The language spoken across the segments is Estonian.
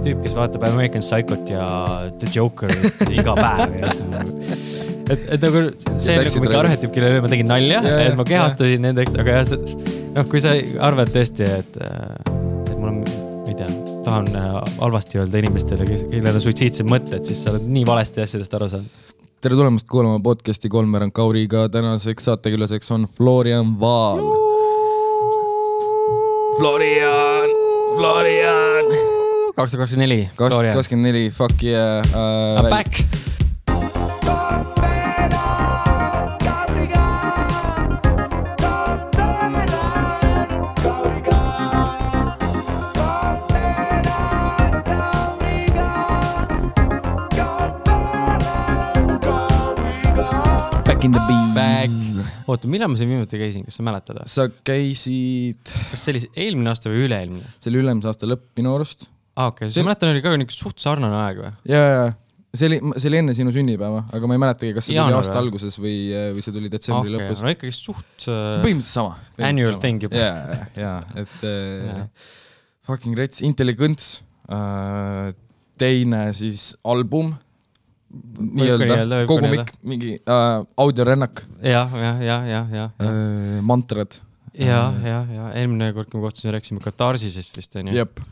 tüüp, kes vaatab American Psychot ja The Joker iga päev ja et nagu see nagu mingi arhetüüp, kellele ma tegin nalja, et ma kehastusin nendeks, aga jah, kui sa arvad tõesti, et mul on, ma ei tea, tahan halvasti öelda inimestele, kellel on suitsiidsed mõtted, siis sa oled nii valesti asjadest aru saanud. Tere tulemast kuulama podcasti Kolmveerand Kauriga. Tänaseks saatekülaseks on Florian Vaal. Florian! 2024. 2024, fuck yeah. I'm back! Back in the bees. Back. Oota, millal ma siin viimati käisin, kas sa mäletad? Sa käisid... Kas see oli eelmine aasta või üle-eelmine? See oli ülemise aasta lõpp minu arust. Okei, sa mäletan, oli ka suht sarnane aeg või? Jaa. See oli enne sinu sünnipäeva, aga ma ei mäletagi, kas see tuli aasta alguses või see tuli detsembri lõpus. No ikkagi suht... Põhimõtteliselt sama. Annual thing juba. Jaa, et fucking rets, Intelligence, teine siis album, nii-öelda, kogumik, mingi audiorännak. Ja. Mantrad. Ja. Eelmine kord, kui me kohtusime, rääksime Katarsisest vist, on ju? Jep.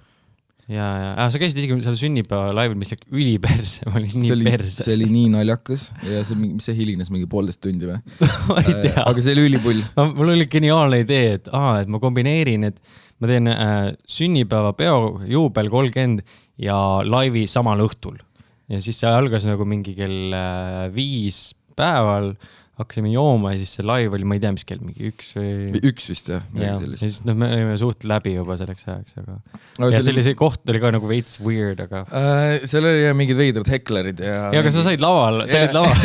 Ja. Sa käisid isegi seal sünnipäeva laivil, mis läks üliperse, ma olin nii perses. See oli nii naljakas ja mis see hilines mingi 1,5 tundi või? Ma ei tea. Aga see oli ülipull. Mul oli geniaalne idee, et ma kombineerin, et ma teen sünnipäeva peo juubel 30 ja laivi samal õhtul. Ja siis see algas nagu mingi kell 5 päeval, hakkasime jooma ja siis see laiv oli, ma ei tea, mis kell, mingi 1 või... 1 vist, jah. Ja siis me olime suht läbi juba selleks ajaks, aga... Ja see koht oli ka nagu veits weird, aga... Seal oli mingid veidrad heklerid ja... Ja, aga sa said laval, sa olid laval.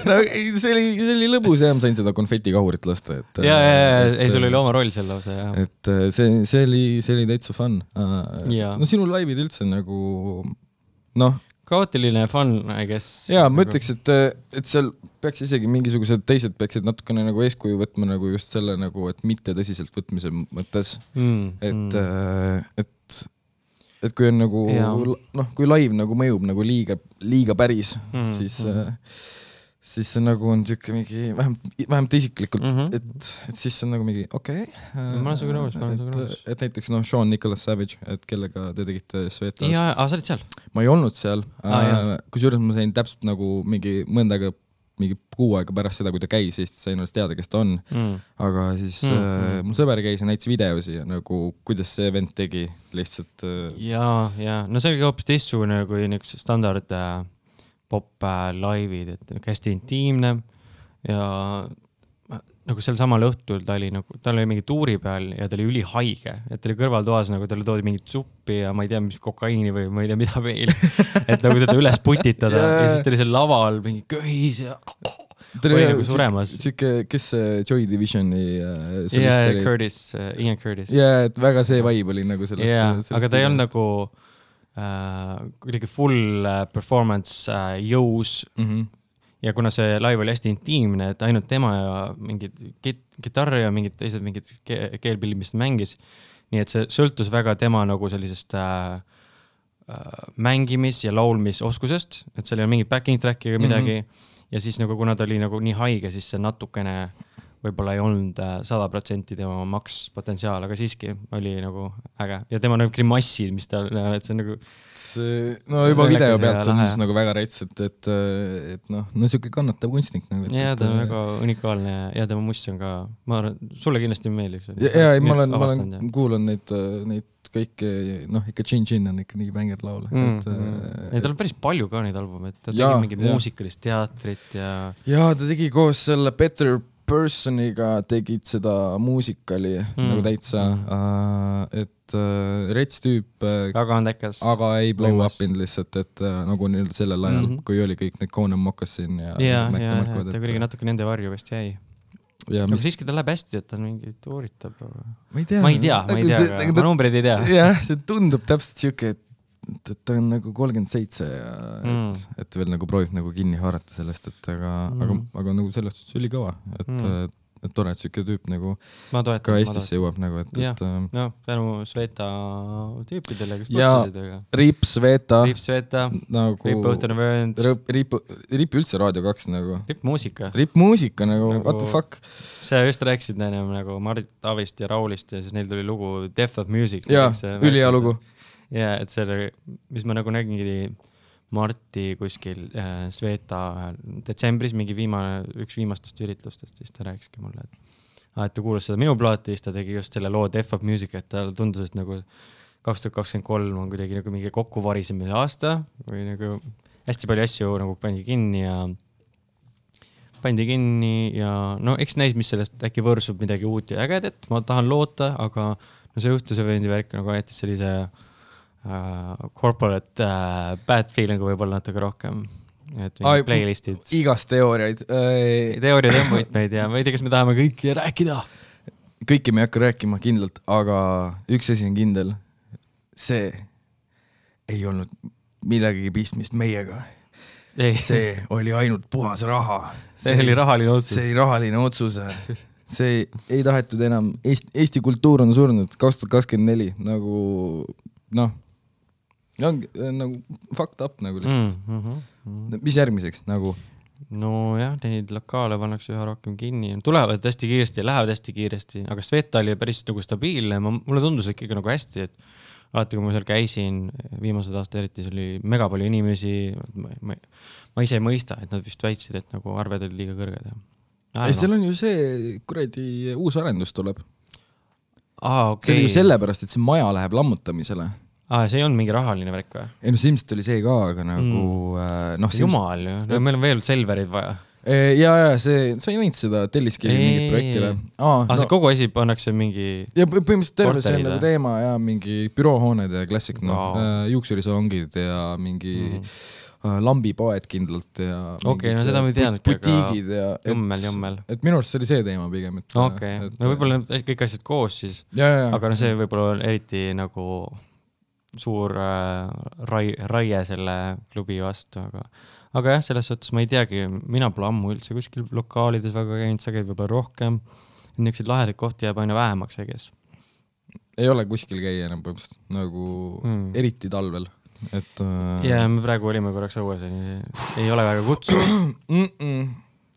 No, see oli lõbus ja ma sain seda konfetikahurit lasta. Ei, sul oli oma roll seal lausa, jah. Et see oli täitsa fun. No sinu laivid üldse nagu... Noh... Kaootiline fun, I guess. Jaa, ma ütleks, et seal peaks isegi mingisugused teised peaksid natukene nagu eeskuju võtma nagu just selle nagu, et mitte tõsiselt võtmise mõttes. Et kui on nagu, kui live nagu mõjub nagu liiga päris, siis see nagu on tükk mingi, vähemalt isiklikult, et siis see on nagu mingi, okei. Ma olen sugu nõus. Et näiteks Sean Nicholas Savage, et kellega te tegite Svetlas. Jaa, sa olid seal? Ma ei olnud seal, kusjuures ma sain täpselt nagu mingi mõndaga, mingi 6 aega pärast seda, kui ta käis, siis sain alles teada, kes ta on. Aga siis mul sõber käis ja näitas videosi ja nagu, kuidas see event tegi lihtsalt. Jaa. No see oli hoopis teistsugune kui üks standard pop-laivid, et hästi intiimne ja nagu sel samal õhtul ta oli mingi tuuri peal ja ta oli ülihaige, et ta oli kõrvaltoas, nagu talle toodi mingit suppi ja ma ei tea, mis kokaiini või ma ei tea, mida veel, et nagu teda üles putitada ja siis ta oli seal laval mingi köhis ja oli nagu suremas. Kes see Joy Divisioni solist oli? Ian Curtis. Jaa, et väga see vibe oli nagu sellest. Aga ta ei olnud nagu kuidagi full performance jõus ja kuna see live oli hästi intiimne, et ainult tema ja mingid kitarri ja mingid teised mingid keelpillid, mis ta mängis, nii et see sõltus väga tema nagu sellisest mängimis- ja laulmisoskusest, et seal ei ole mingid backing track'i või midagi ja siis nagu kuna ta oli nagu nii haige, siis see natukene võib-olla ei olnud 100% tema makspotentsiaal, aga siiski oli nagu äge. Ja tema nagu grimassid, mis ta, et see nagu... No juba video pealt see on nagu väga rets, et siuke kannatav kunstnik. Ja ta on väga unikaalne ja tema must on ka, ma arvan, sulle kindlasti meeldib. Ja ma kuulan neid kõike, ikka Chin on ikka nii bängerd laul. Tal on päris palju ka neid albumeid, ta tegi mingi muusikalist teatrit ja... Ja ta tegi koos selle Better Personiga tegid seda muusikali nagu täitsa, et rets tüüp, aga ei blow up in lihtsalt, et nagu nüüd sellel ajal, kui oli kõik need Conan Moccasin ja ta kuidagi natuke nende varju vist jäi. Aga siiski ta läheb hästi, et ta mingi tuuritab. Ma ei tea, ma numbreid ei tea. Jah, see tundub täpselt siuke, et ta on nagu 37 ja et veel nagu proovib nagu kinni haarata sellest, et aga nagu sellest oli kõva, et tore, et siuke tüüp nagu ka Eestisse jõuab nagu, et no tänu Sveta tüüpidele, kes põtsusid, aga Riip Sveta nagu Riip Õhtune Vöönd Riip üldse Raadio 2 nagu Riip muusika nagu what the fuck. Sa just rääkisid ennem nagu Marit Avist ja Raulist ja siis neil tuli lugu Death of Music. Jaa, ülihea lugu. Ja, et see, mis ma nagu nägingi Marti kuskil Sveta detsembris mingi üks viimastest üritlustest, siis ta rääkiski mulle, et ta kuulas seda minu plaati, siis ta tegi just selle loo Death of Music, et ta tundus, et nagu 2023 on kuidagi nagu mingi kokkuvarisemise aasta või nagu hästi palju asju nagu pandi kinni ja no eks näis, mis sellest äkki võrsub midagi uut ja ägedet, ma tahan loota, aga no see Õhtuse Vööndi värk nagu jättis sellise corporate bad feeling võib-olla natuke rohkem, et playlistid. Igast teooriaid. Teooriad on võitmeid ja ma ei tea, kas me tahame kõiki rääkida. Kõiki me ei hakka rääkima kindlalt, aga üks asi on kindel. See ei olnud millegagi pistmist meiega. See oli ainult puhas raha. See oli rahaline otsus. See oli rahaline otsus. See ei tahetud enam. Eesti kultuur on surnud 2024 nagu noh, nagu fucked up nagu lihtsalt. Mis järgmiseks nagu? No jah, neid lokaale pannakse üha rohkem kinni. Tulevad hästi kiiresti ja lähevad hästi kiiresti, aga Sveta oli päris nagu stabiilne. Mulle tundus ikkagi nagu hästi, et alati kui ma seal käisin, viimased aasta eriti, see oli mega palju inimesi. Ma ise ei mõista, et nad vist väitsid, et nagu arved olid liiga kõrged. Seal on ju see kuradi uus arendus tuleb. Okay. See oli ju sellepärast, et see maja läheb lammutamisele. See ei olnud mingi rahaline värk või? Ei no silmselt oli see ka, aga nagu Jumal ju, meil on veel Selverid vaja. Ja sa ei näinud seda Telliskivi mingit projekti või? See kogu asi pannakse mingi ja põhimõtteliselt terve see on nagu teema ja mingi büroohooned ja klassik, juuksurisalongid ja mingi lambipoed kindlalt ja okay, no seda me teadnud butiigid ja jummel. Et minu arust see oli see teema pigem. Okay. No võib-olla kõik asjad koos siis, aga no see võib-olla on eriti nagu suur raie selle klubi vastu, aga jah, selles suhtes ma ei teagi, mina pole ammu üldse kuskil lokaalides väga käinud, sa käid võib-olla rohkem, niisuguseid lahedaid kohti jääb aina vähemaks, ei ole kuskil käia enam põhimõtteliselt, nagu eriti talvel. Ja me praegu olime korraks õues, ei ole väga kutsu.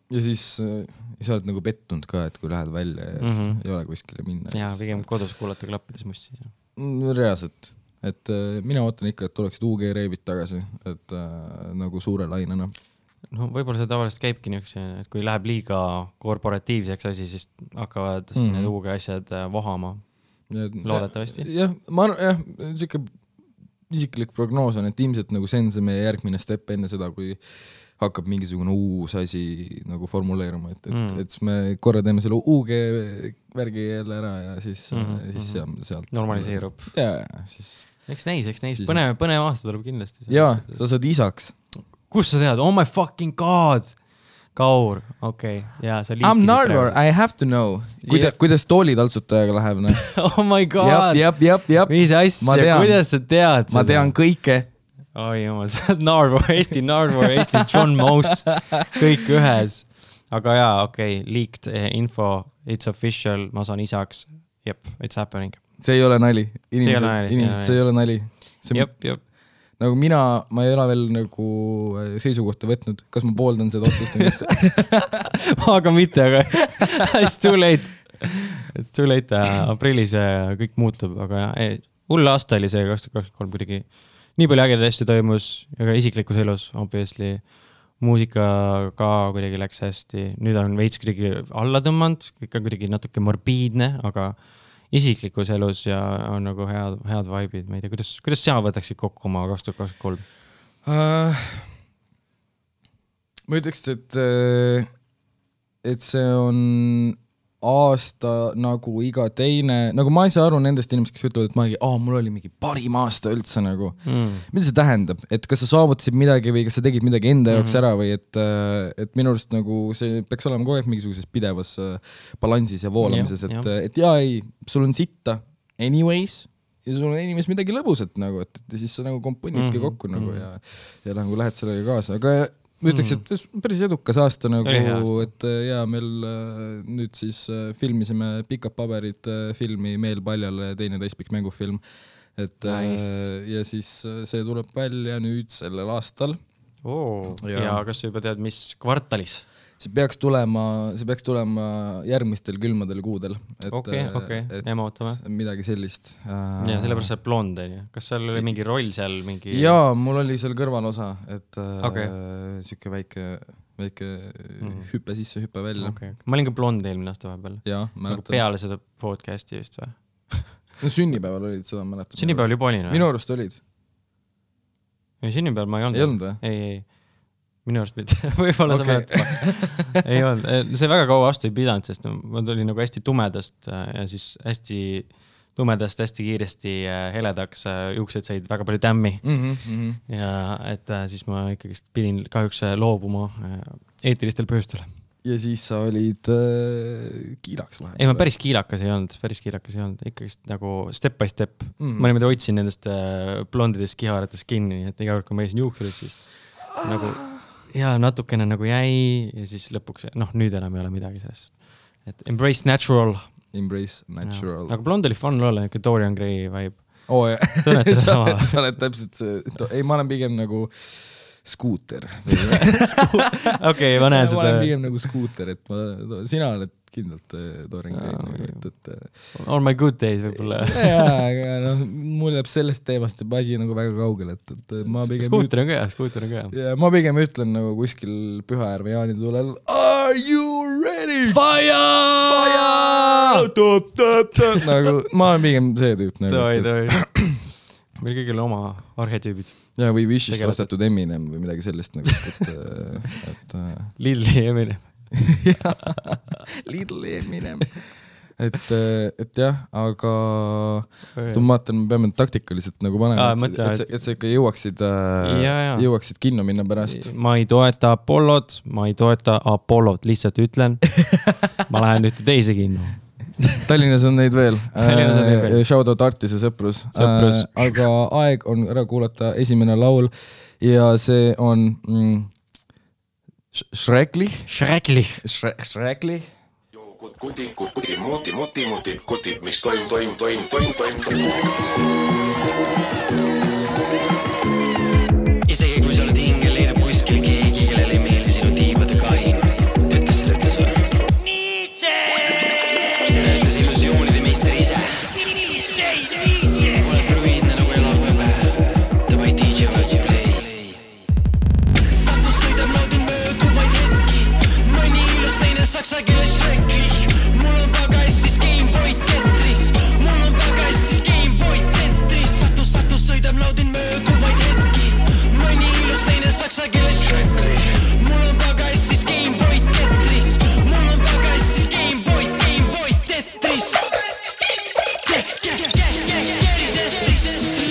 Ja siis sa oled nagu pettunud ka, et kui lähed välja ja ei ole kuskile minna. Ja pigem kodus kuulata klappides mussi. Reaalselt. Et mina ootan ikka, et tuleksid UG reibid tagasi, et nagu suure lainena. No võib-olla see tavaliselt käibki niisuguse, et kui läheb liiga korporatiivseks asi, siis hakkavad need UG asjad vohama. Loodetavasti. Jah, siuke isiklik prognoos on, et ilmselt nagu see on see meie järgmine step enne seda, kui hakkab mingisugune uus asi nagu formuleeruma, et me korra teeme selle UG värgi jälle ära ja siis sealt normaliseerub. Ja siis Eks näis. Põnev aasta tuleb kindlasti. Jaa, sa saad isaks. Kus sa tead? Oh my fucking god! Kaur, okei. Ja, sa liikisid I'm Narvor, I have to know. Kuidas toolitaltsutajaga läheb? Oh my god! Jab. Mis asja, kuidas sa tead seda? Ma tean kõike. Oi jumal, sa oled Narvor, Eesti John Mouse, kõik ühes. Aga jaa, okei, leaked info, it's official, ma saan isaks. Jep, it's happening. See ei ole nali. Inimesed, see ei ole nali. Jep. Nagu ma ei ole veel nagu seisukohta võtnud. Kas ma pooldan seda otsust või mitte? Aga mitte, aga it's too late. It's too late. Aprillis kõik muutub, aga hull aasta oli see 2023 kuidagi. Nii palju ägedaid asju toimus, aga isiklikus elus, obviously. Muusika ka kuidagi läks hästi. Nüüd on veits kuidagi alla tõmmanud, kõik on kuidagi natuke morbiidne, aga isiklikus elus ja on nagu head vibe'id. Ma ei tea, kuidas sina võtaksid kokku oma 2023? Ma ütleks, et see on aasta nagu iga teine, nagu ma ei saa aru nendest inimesed, kes ütlevad, et mul oli mingi parim aasta üldse nagu. Mida see tähendab? Et kas sa saavutasid midagi või kas sa tegid midagi enda jaoks ära või et minu arust nagu see peaks olema kogu aeg mingisuguses pidevas balansis ja voolamises, et sul on sitta anyways ja sul on inimes midagi lõbusat nagu, et siis sa nagu komponidki kokku nagu ja nagu lähed sellega kaasa, aga ma ütleks, et päris edukas aasta nagu, et ja meil nüüd siis filmisime Pikad paberid filmi Meel paljale, teine täispikk mängufilm, et ja siis see tuleb välja nüüd sellel aastal. Ja kas sa juba tead, mis kvartalis? See peaks tulema järgmistel külmadel kuudel. Okei, jääme ootame. Midagi sellist. Ja sellepärast sa blond, kas seal oli mingi roll seal? Jaa, mul oli seal kõrvalosa, et süke väike hüppe sisse, hüppe välja. Ma olin ka blond eelmine aasta vahepeal. Jaa, mäletan. Peale seda podcasti vist või? No sünnipäeval olid, seda mäletan. Sünnipäeval juba olin või? Minu arust olid. Sünnipäeval ma ei olnud. Ei olnud või? Ei. Minu arust mitte, võib-olla sa mäletad. Ei olnud, see väga kaua vastu ei pidanud, sest ma tulin nagu hästi tumedast ja siis hästi tumedast hästi kiiresti heledaks, juuksed said väga palju tämmi. Ja et siis ma ikkagi pidin kahjuks loobuma eetilistel põhjustel. Ja siis sa olid kiilaks vahel? Ei, ma päris kiilakas ei olnud, ikkagi nagu step by step. Ma niimoodi otsin nendest blondidest kiharatest kinni, et iga kord, kui ma eisin juuksurid, siis nagu ja natukene nagu jäi ja siis lõpuks, nüüd enam ei ole midagi sellest. Et embrace natural. Aga blond oli fun olla, niisugune Dorian Gray vibe. Jah. Tunned seda sama? Sa oled täpselt see, ei, ma olen pigem nagu skuuter. Okei, ma näen seda. Ma olen pigem nagu skuuter, et sina oled kindlalt Dorian Gray. On my good days võib-olla. Aga mul jääb sellest teemast asi nagu väga kaugel, et ma pigem... Skuuter on ka hea. Ja ma pigem ütlen nagu kuskil Pühajärve jaanitulel Are you ready? Fire! Nagu, ma olen pigem see tüüp. Toi. Meil kõigil oma arhetüübid. Ja, või Wishist ostetud Eminem või midagi sellist nagu, et Lidli Eminem. Lidl Eminem. Et jah, aga ma vaatan, me peame taktikaliselt nagu panema, et sa ikka jõuaksid kinno minna pärast. Ma ei toeta Apollod, lihtsalt ütlen. Ma lähen ühte teise kinno. Tallinnas on neid veel. Shoutout Artise sõprus. Aga aeg on ära kuulata esimene laul ja see on Shrekli. Kutid, mis toimub. Isegi kui sa oled hingel, leidub kuskil keegi, kellel ei meeldi sinu tiibade kahin. Tead, kes seda ütles või? Nietzsche! Seda ütles illusioonide meister ise. Ole fluiidne nagu elav võbe. Davai DJ Virgin Play. Katus sõidab naudin mööduvaid hetki. Mõni ilus teine saksa keeles Shrekli. Mul on pagassis Gameboy Tetris. Satus sõidab naudin mööduvaid hetki. Mõni ilus teine saksa keeles Shrekli. Mul on pagassis Gameboy Tetris. Mul on pagassis Gameboy Tetris.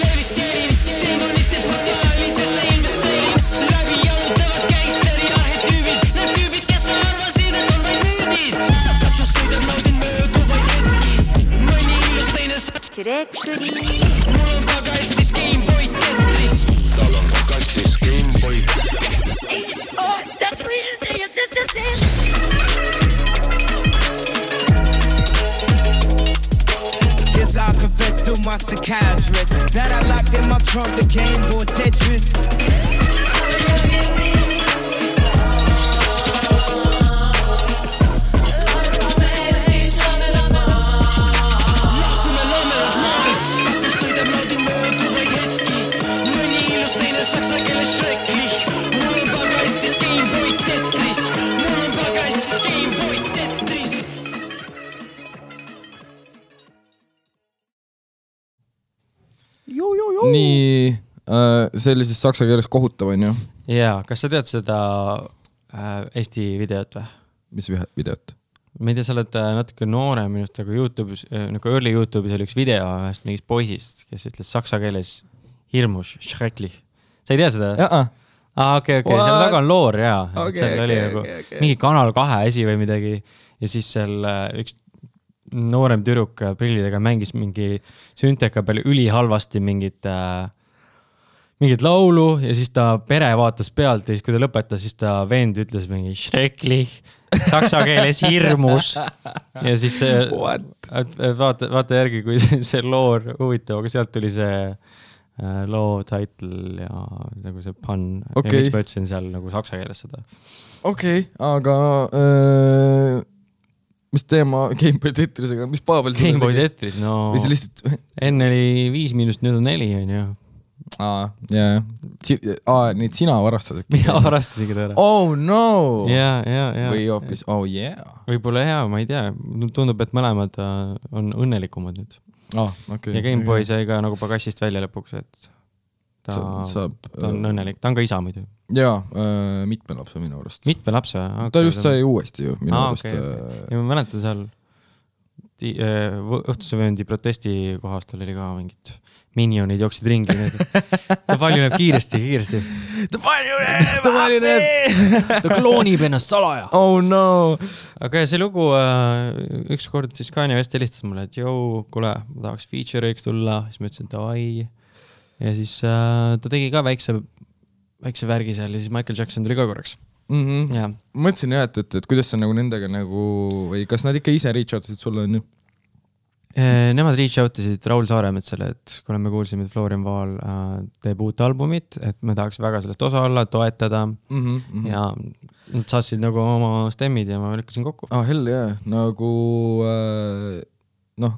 Leviteerin demonite portaalidesse investeerin. Läbi jalutavad gangsteri arhetüübid. Need tüübid, kes sa arvasid, et on vaid müüdid. Katus sõidab naudin mööduvaid hetki. Mõni ilus teine Shrekli. Mul on pagassis Gameboy Tetris. Tal on pagassis Gameboy. Oh, that's what you say, yes. Yes, I'll confess to my psychiatrist that I locked in my trunk the Gameboy Tetris. Saksa keeles Shrekli. Mul on pagassis Gameboy Tetris. Mul on pagassis Gameboy Tetris. Nii, see oli siis saksa keeles kohutav, on ju? Jaa, kas sa tead seda Eesti videot või? Mis videot? Ma ei tea, sa oled natuke noorem minust, aga YouTube'is, nagu early YouTube'is oli üks video ühest mingist poisist, kes ütles saksa keeles hirmus Shrekli. Sa ei tea seda? Jaa. Okei, seal taga on loor, jaa. Seal oli mingi Kanal 2 esi või midagi ja siis seal üks noorem tüdruk prillidega mängis mingi sünteka peal ülihalvasti mingit mingit laulu ja siis ta pere vaatas pealt ja siis kui ta lõpetas, siis ta vend ütles mingi schrecklich, saksa keeles hirmus ja siis vaata järgi, kui see loor huvitav, aga sealt tuli see loo title ja nagu see pun ja miks ma ütlesin seal nagu saksa keeles seda. Okei, aga mis teema Gameboy Tetrisega, mis Pavel Gameboy Tetris, no enne oli 5 miinust, nüüd on 4 on ju. Neid sina varastasid. Mina varastasingi ta ära. Oh no! Ja. Või hoopis, oh yeah. Võib-olla hea, ma ei tea. Tundub, et mõlemad on õnnelikumad nüüd. Okay, ja Gameboy sai ka nagu pagassist välja lõpuks, et ta on õnnelik. Ta on ka isa muidu. Jaa, mitme lapse minu arust. Mitme lapse? Okay, ta just sai uuesti ju minu arust. Okay. Ja ma mäletan seal õhtusevööndi protesti kohast oli ka mingit minionid jooksid ringi. Ta palju näeb kiiresti. Ta palju näeb! Ta kloonib ennast salaja. Oh no! Aga see lugu, üks kord siis Kanye West helistas mulle, et jõu, kuule, ma tahaks feature'iks tulla. Siis ma ütlesin, et davai. Ja siis ta tegi ka väikse värgi seal ja siis Michael Jackson tuli ka korraks. Ma mõtlesin jah, et kuidas sa nagu nendega nagu, või kas nad ikka ise reach out'isid sulle on ju? Nemad reach out'isid Raul Saaremetsale, et kui me kuulsime, et Florian Vaal teeb uut albumit, et me tahaks väga sellest osa olla, toetada ja nad saatsid nagu oma stemmid ja ma lükkasin kokku. Hell jah, nagu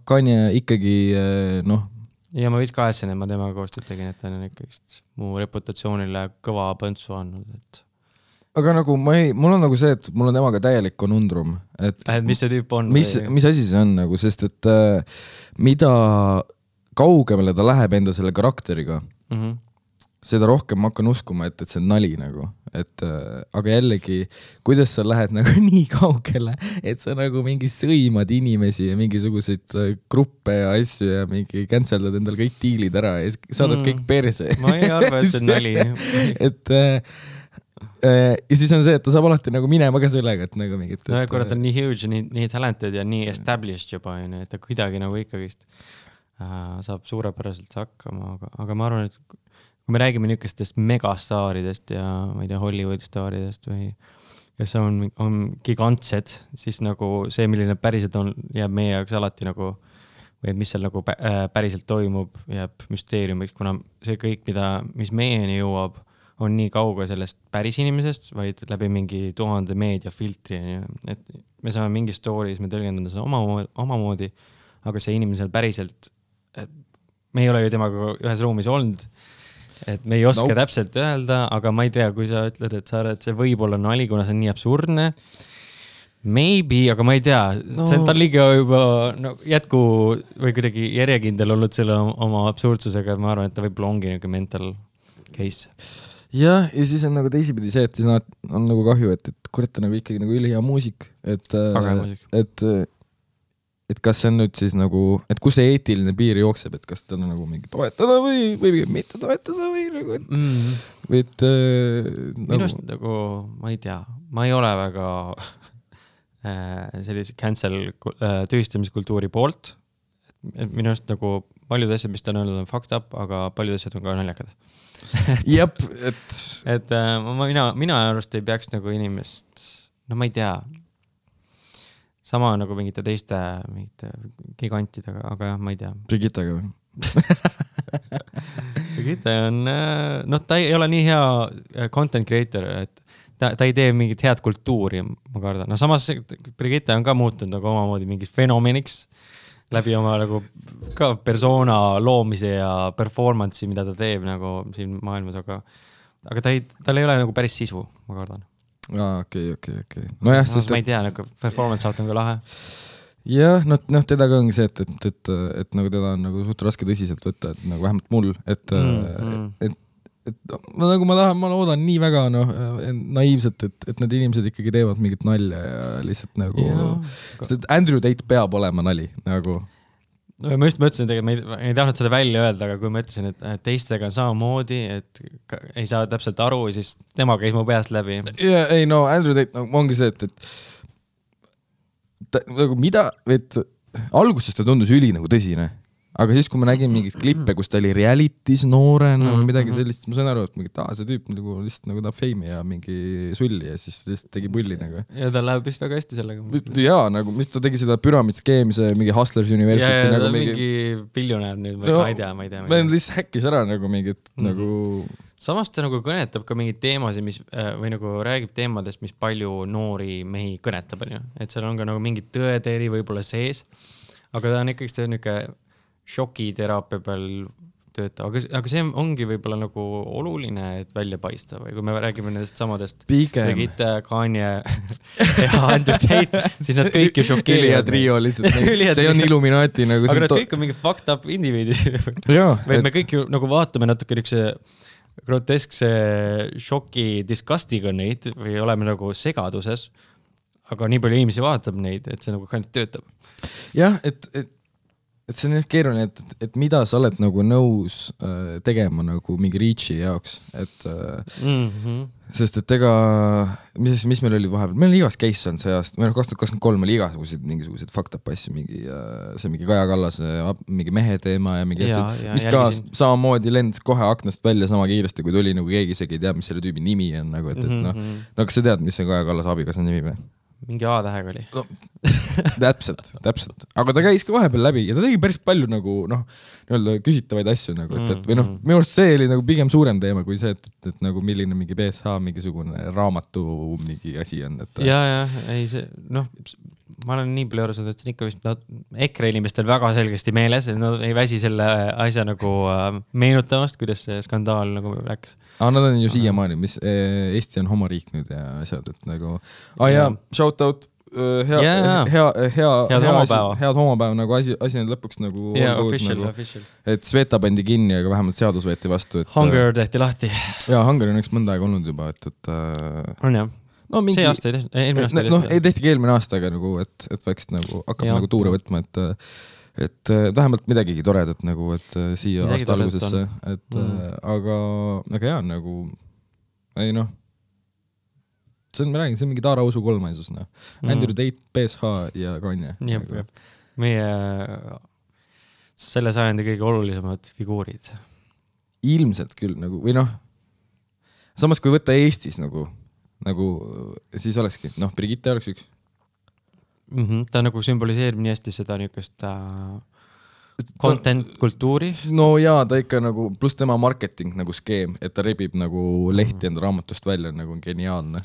Kanye ikkagi ja ma võiks kahetsen, et ma temaga koostööd tegin, et ta on ikkagi mu reputatsioonile kõva põntsu andnud, et aga nagu mul on nagu see, et mul on temaga täielik konundrum. Et mis see tüüp on? Mis asi see on nagu, sest et mida kaugemale ta läheb enda selle karakteriga, seda rohkem ma hakkan uskuma, et see on nali nagu. Aga jällegi, kuidas sa lähed nagu nii kaugele, et sa nagu mingi sõimad inimesi ja mingisuguseid gruppe ja asju ja mingi canceldad endal kõik diilid ära ja saadad kõik perse. Ma ei arva, et see on nali. Ja siis on see, et ta saab alati nagu minema ka sellega, et nagu mingit... No korra ta on nii huge, nii talented ja nii established juba, et ta kuidagi nagu ikkagist saab suurepäraselt hakkama, aga ma arvan, et kui me räägime niisugustest megastaaridest ja ma ei tea, Hollywoodi staaridest või kes on gigantsed, siis nagu see, milline päriselt on, jääb meie jaoks alati nagu, või mis seal nagu päriselt toimub, jääb müsteeriumiks, kuna see kõik, mis meieni jõuab, on nii kauge sellest päris inimesest, vaid läbi mingi 1000 meediafiltri. Et me saame mingi stories, me tõlgendame seda omamoodi, aga see inimesel päriselt, me ei ole ju temaga ühes ruumis olnud, et me ei oska täpselt öelda, aga ma ei tea, kui sa ütled, et see võib olla nali, kuna see on nii absurdne, maybe, aga ma ei tea, see on tal liiga juba jätku või kuidagi järjekindel olnud selle oma absurdsusega, ma arvan, et ta võib-olla ongi nagu mental case. Ja siis on nagu teisipidi see, et siis on nagu kahju, et kurat on nagu ikkagi nagu ülihea muusik, et kas see on nüüd siis nagu, et kus see eetiline piir jookseb, et kas ta on nagu mingi toetada või mitte toetada või nagu, minust nagu, ma ei tea, ma ei ole väga sellise cancel tühistamiskultuuri poolt, et minust nagu paljud asjad, mis ta on öelnud, on fucked up, aga paljud asjad on ka naljakad. Jep, mina arvast ei peaks nagu inimest, ma ei tea, sama nagu mingite teiste gigantidega, aga jah, ma ei tea. Brigittaga või? Brigitta on, ta ei ole nii hea content creator, et ta ei tee mingit head kultuuri, ma kardan. Samas Brigitta on ka muutunud nagu omamoodi mingis fenomeniks läbi oma nagu ka persona loomise ja performance'i, mida ta teeb nagu siin maailmas, aga tal ei ole nagu päris sisu, ma kardan. Okei. No jah, sest... Ma ei tea, nagu performance saat on ka lahe. Jah, teda ka ongi see, et nagu teda on nagu suht raske tõsiselt võtta, et nagu vähemalt mul, et nagu ma loodan nii väga naiivselt, et need inimesed ikkagi teevad mingit nalja ja lihtsalt nagu sest Andrew Tate peab olema nali nagu. Ma just mõtlesin, et ma ei tahtnud seda välja öelda, aga kui ma ütlesin, et teistega on samamoodi, et ei saa täpselt aru, siis tema käis mu peast läbi. Andrew Tate ongi see, et nagu mida, et alguses ta tundus üli nagu tõsine aga siis, kui ma nägin mingit klippe, kus ta oli realities noorena või midagi sellist, ma sain aru, et mingi, see tüüp nagu lihtsalt nagu tahab feimi ja mingi sulli ja siis lihtsalt tegi pulli nagu. Ja ta läheb vist väga hästi sellega. Jaa, nagu mis ta tegi seda Pyramid-skeemi, see mingi Hustlers University. Ja nagu mingi biljonär nüüd, ma ei tea. Ma lihtsalt häkkis ära nagu mingit nagu... Samas ta nagu kõnetab ka mingeid teemasid, mis, või nagu räägib teemadest, mis palju noori mehi kõnetab, et seal on ka nagu mingi tõeteri võib-olla sees, aga ta on ikkagi see niuke šokiteraapia peal töötav, aga see ongi võib-olla nagu oluline, et välja paista või kui me räägime nendest samadest tegid Kanye ja Andrew Tate, siis nad kõik ju šokeerivad. Elia trio lihtsalt, see on Illuminati nagu. Aga nad kõik on mingi fucked up indiviidid. Või me kõik ju nagu vaatame natuke niukse groteskse šoki disgustiga neid või oleme nagu segaduses, aga nii palju inimesi vaatab neid, et see nagu ainult töötab. Jah, et see on keeruline, et mida sa oled nagu nõus tegema nagu mingi reach'i jaoks, et sest et ega mis meil oli vahepeal, meil oli igas case on see aasta, meil 2023 oli mingisugused fucked up asju, see mingi Kaja Kallase mingi mehe teema ja mingi asju, mis ka samamoodi lendas kohe aknast välja sama kiiresti, kui tuli nagu keegi isegi ei tea, mis selle tüübi nimi on nagu, et no kas sa tead, mis see Kaja Kallase abikaasa nimi või? Mingi A-tähega oli. No, täpselt. Aga ta käis ka vahepeal läbi ja ta tegi päris palju nagu, nii-öelda küsitavaid asju nagu, et või minu arust see oli nagu pigem suurem teema kui see, et nagu milline mingi BSH mingisugune raamatu mingi asi on. Ja, ei see, ma olen nii palju arvanud, et see on ikka vist EKRE inimestel väga selgesti meeles, et nad ei väsi selle asja nagu meenutamast, kuidas see skandaal nagu läks. Nad on ju siiamaani, mis Eesti on homoriik nüüd ja asjad, et nagu shout out, head homopäeva nagu asi nüüd lõpuks nagu official. Et Sveta pandi kinni, aga vähemalt seadus võeti vastu. Hunger tehti lahti. Ja, Hunger on üks mõnda aega olnud juba, on jah. See aasta ei tehti, eelmine aasta ei tehti. Ei tehtigi eelmine aasta, aga nagu, et võiks nagu hakkab nagu tuure võtma, et vähemalt midagigi toredat nagu, et siia aasta algusesse, et aga jaa, nagu ei see on, ma räägin, see on mingi Taara Usu kolmaisus, Andrew Tate, BSH ja Kanye. Meie selle sajandi kõige olulisemad figuurid. Ilmselt küll nagu, või samas kui võtta Eestis nagu siis olekski, Brigitte oleks üks. Ta nagu sümboliseerib nii hästi seda niukest content kultuuri. No jaa, ta ikka nagu, pluss tema marketing nagu skeem, et ta rebib nagu lehti enda raamatust välja, nagu on geniaalne.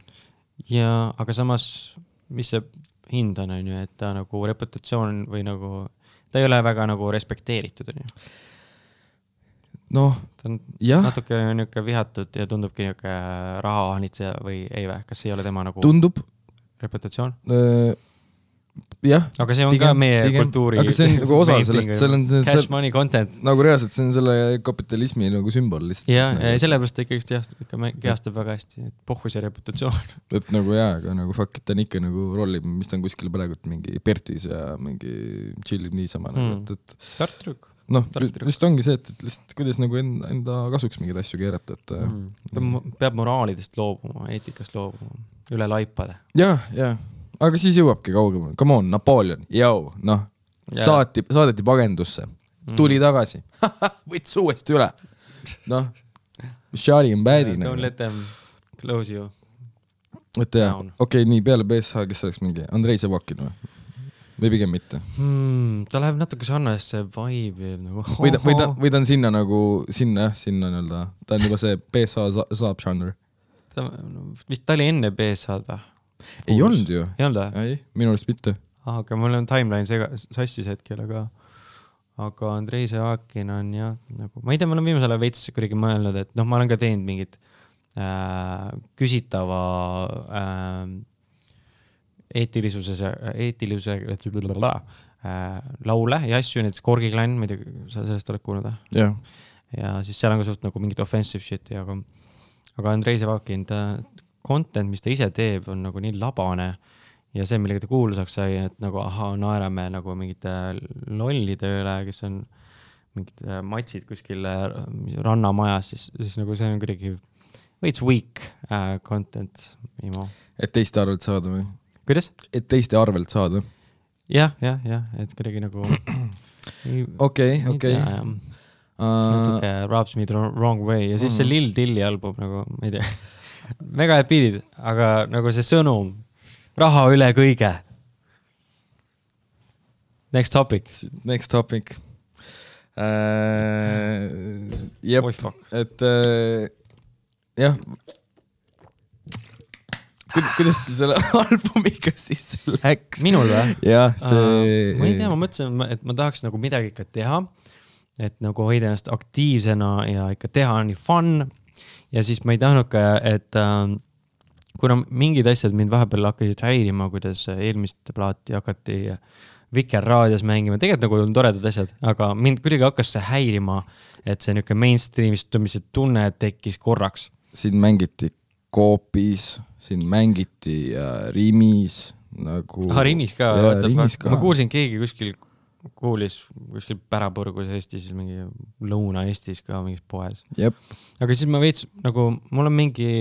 Ja, aga samas, mis see hind on, et ta nagu reputatsioon või nagu, ta ei ole väga nagu respekteeritud, on ju. Ta on natuke niuke vihatud ja tundubki niuke rahahanitseja või ei või, kas ei ole tema nagu tundub reputatsioon? Jah. Aga see on ka meie kultuuri. Aga see on nagu osa sellest, cash money content. Nagu reaalselt see on selle kapitalismi nagu sümbol lihtsalt. Ja sellepärast ta ikka kehastab väga hästi, et pohhu see reputatsioon. Et nagu aga nagu fuck, ta on ikka nagu rollib, mis ta on kuskil praegult mingi Pertis ja mingi chillib niisama. Tartruk. Just ongi see, et lihtsalt kuidas nagu enda kasuks mingid asju keerata. Peab moraalidest loobuma, eetikast loobuma, üle laipade. Ja. Aga siis jõuabki kaugemale. Come on, Napoleon, saadeti pagendusse. Tuli tagasi. Võts uuesti üle. Shari on bad'i. Don't let them close you. Okei, nii peale BSH, kes oleks mingi Andrei Sevakin või pigem mitte? Ta läheb natuke sarnasesse vibe nagu. Või ta on sinna nagu, sinna nii-öelda. Ta on juba see BSH saab žanr. Vist ta oli enne BSH või? Ei olnud ju. Ei olnud või? Ei, minu arust mitte. Aga mul on timeline sassis hetkel, aga Andrei Sevakin on nagu, ma ei tea, ma olen viimasele veits kuidagi mõelnud, et ma olen ka teinud mingit küsitava eetilisuse laule ja asju, näiteks Korgi Klann, ma ei tea, sa sellest oled kuulnud? Jah. Ja siis seal on ka suht nagu mingit offensive shit, aga Andrei Sevakin, content, mis ta ise teeb, on nagu nii labane ja see, millega ta kuulsaks sai, et nagu naerame nagu mingite lollide üle, kes on mingid matsid kuskil rannamajas, siis nagu see on kuidagi veits weak content. Et teiste arvelt saada või? Kuidas? Et teiste arvelt saada? Jah, et kuidagi nagu okei. Natuke Rubs Me the Wrong Way ja siis see Lil Dilli album nagu, ma ei tea, mega head beatid, aga nagu see sõnum, raha üle kõige. Next topic. Jep, et jah, kuidas selle albumiga siis läks? Minul või? Jah, ma ei tea, ma mõtlesin, et ma tahaks nagu midagi ikka teha, et nagu hoida ennast aktiivsena ja ikka teha on nii fun ja siis ma ei tahtnud ka, et kuna mingid asjad mind vahepeal hakkasid häirima, kuidas eelmist plaati hakati Vikerraadios mängima, tegelikult nagu on toredad asjad, aga mind kuidagi hakkas see häirima, et see niuke mainstreamistumise tunne tekkis korraks. Siin mängiti Coopis, siin mängiti Rimis nagu... Rimis ka, ma kuulsin keegi kuulis kuskil Pärapurgus Eestis, mingi Lõuna-Eestis ka mingis poes. Jep. Aga siis ma veits, nagu mul on mingi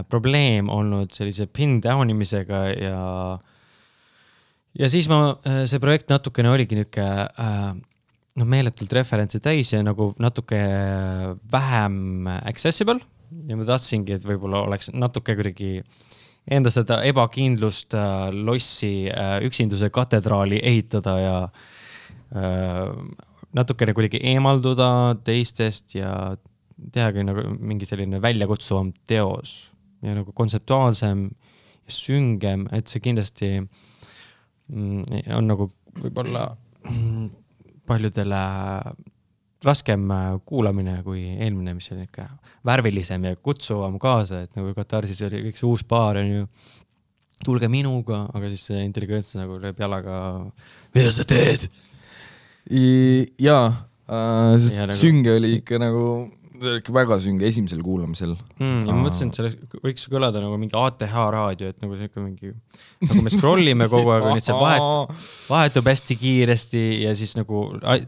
probleem olnud sellise pin downimisega ja siis see projekt natukene oligi niuke meeletult referentsi täis ja nagu natuke vähem accessible ja ma tahtsingi, et võib-olla oleks natuke kuidagi enda seda ebakindlust lossi üksinduse katedraali ehitada ja natukene kuidagi eemalduda teistest ja tehagi nagu mingi selline väljakutsuvam teos ja nagu kontseptuaalsem ja süngem, et see kindlasti on nagu võib-olla paljudele raskem kuulamine kui eelmine, mis oli ikka värvilisem ja kutsuvam kaasa, et nagu Katarsis oli kõik see uus paar on ju, tulge minuga, aga siis see intelligents nagu lööb jalaga, mida sa teed? Jaa, sest sünge oli ikka nagu väga sünge esimesel kuulamisel. Ja ma mõtlesin, et see võiks kõlada nagu mingi ATH raadio, et nagu see ikka mingi, nagu me scrollime kogu aeg, nüüd see vahetub hästi kiiresti ja siis nagu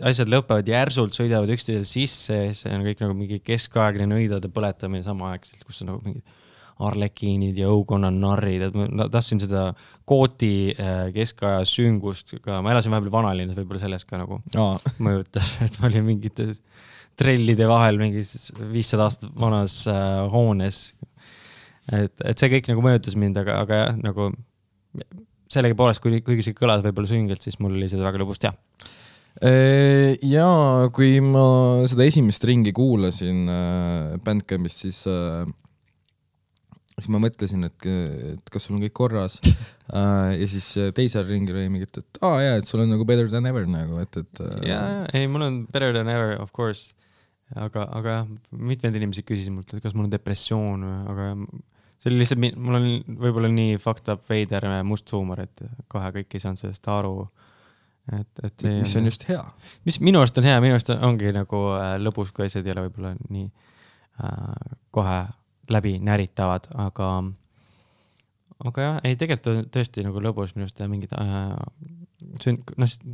asjad lõpevad järsult, sõidavad üksteisel sisse, see on kõik nagu mingi keskaegne nõidade põletamine samaaegselt, kus on nagu mingid arlekiinid ja õukonna narrid, et ma tahtsin seda kooti keskaja süngust ka, ma elasin vahepeal vanalinnas, võib-olla sellest ka nagu mõjutas, et ma olin mingites trellide vahel mingis 500 aastat vanas hoones. Et see kõik nagu mõjutas mind, aga jah, nagu sellegi poolest, kuigi see kõlas võib-olla süngelt, siis mul oli seda väga lõbus teha. Ja kui ma seda esimest ringi kuulasin Bandcampist, siis ma mõtlesin, et kas sul on kõik korras ja siis teisel ringil oli mingit, et et sul on nagu better than ever nagu, ei, mul on better than ever, of course, aga jah, mitmed inimesed küsisid mult, et kas mul on depressioon, aga see oli lihtsalt, mul on võib-olla nii fucked up veider must huumor, et kohe kõik ei saanud sellest aru. Mis on just hea. Mis minu arust on hea, minu arust ongi nagu lõbus, kui asjad ei ole võib-olla nii kohe läbi näritavad, aga jah, ei tegelikult tõesti nagu lõbus minu arust mingid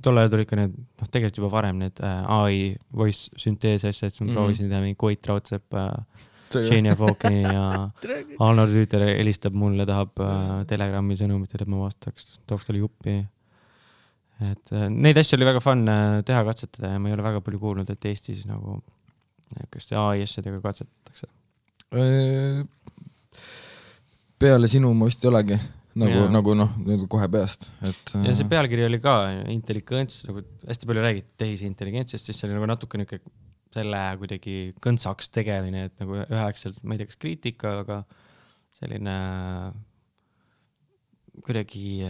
tollal tuli ikka need, tegelikult juba varem need AI voice syntheese asjad, siis ma proovisin teha mingi Koit Raudsepp, Shania Falkini ja Arnold Rüüter helistab mulle, tahab Telegrami sõnumitel, et ma vastaks, tooks talle juppi. Et neid asju oli väga fun teha, katsetada ja ma ei ole väga palju kuulnud, et Eestis nagu AI asjadega katsetatakse. Peale sinu ma vist ei olegi nagu kohe peast. Ja see pealkiri oli ka intelligents, nagu hästi palju räägiti tehisintelligentsist, siis see oli nagu natuke selle kuidagi kõntsaks tegemine, et nagu üheaegselt, ma ei tea, kas kriitika, aga selline kuidagi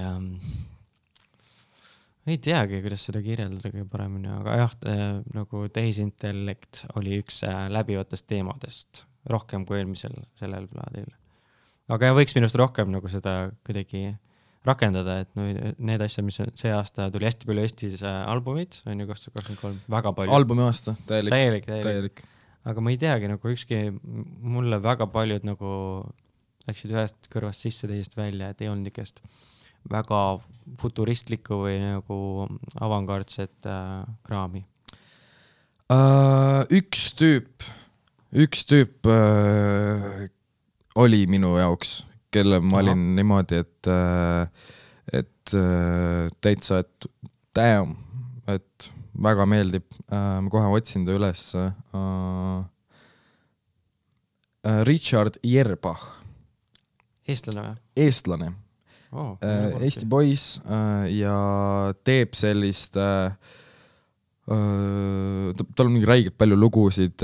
ei teagi, kuidas seda kirjeldada kõige paremini, aga jah, nagu tehisintellekt oli üks läbivatest teemadest rohkem kui eelmisel sellel plaadil. Aga võiks minust rohkem nagu seda kuidagi rakendada, et need asjad, mis see aasta tuli hästi palju Eestis albumid, on ju 2023, väga palju. Albumi aasta, täielik. Aga ma ei teagi, nagu ükski mulle väga paljud nagu läksid ühest kõrvast sisse, teisest välja, et ei olnud nikest väga futuristlikku või nagu avangardset kraami. Üks tüüp oli minu jaoks, kelle ma olin niimoodi, et täitsa, et damn, et väga meeldib, ma kohe otsin ta üles. Richard Yerbach. Eestlane või? Eestlane. Eesti poiss ja teeb sellist tal on mingi räigelt palju lugusid,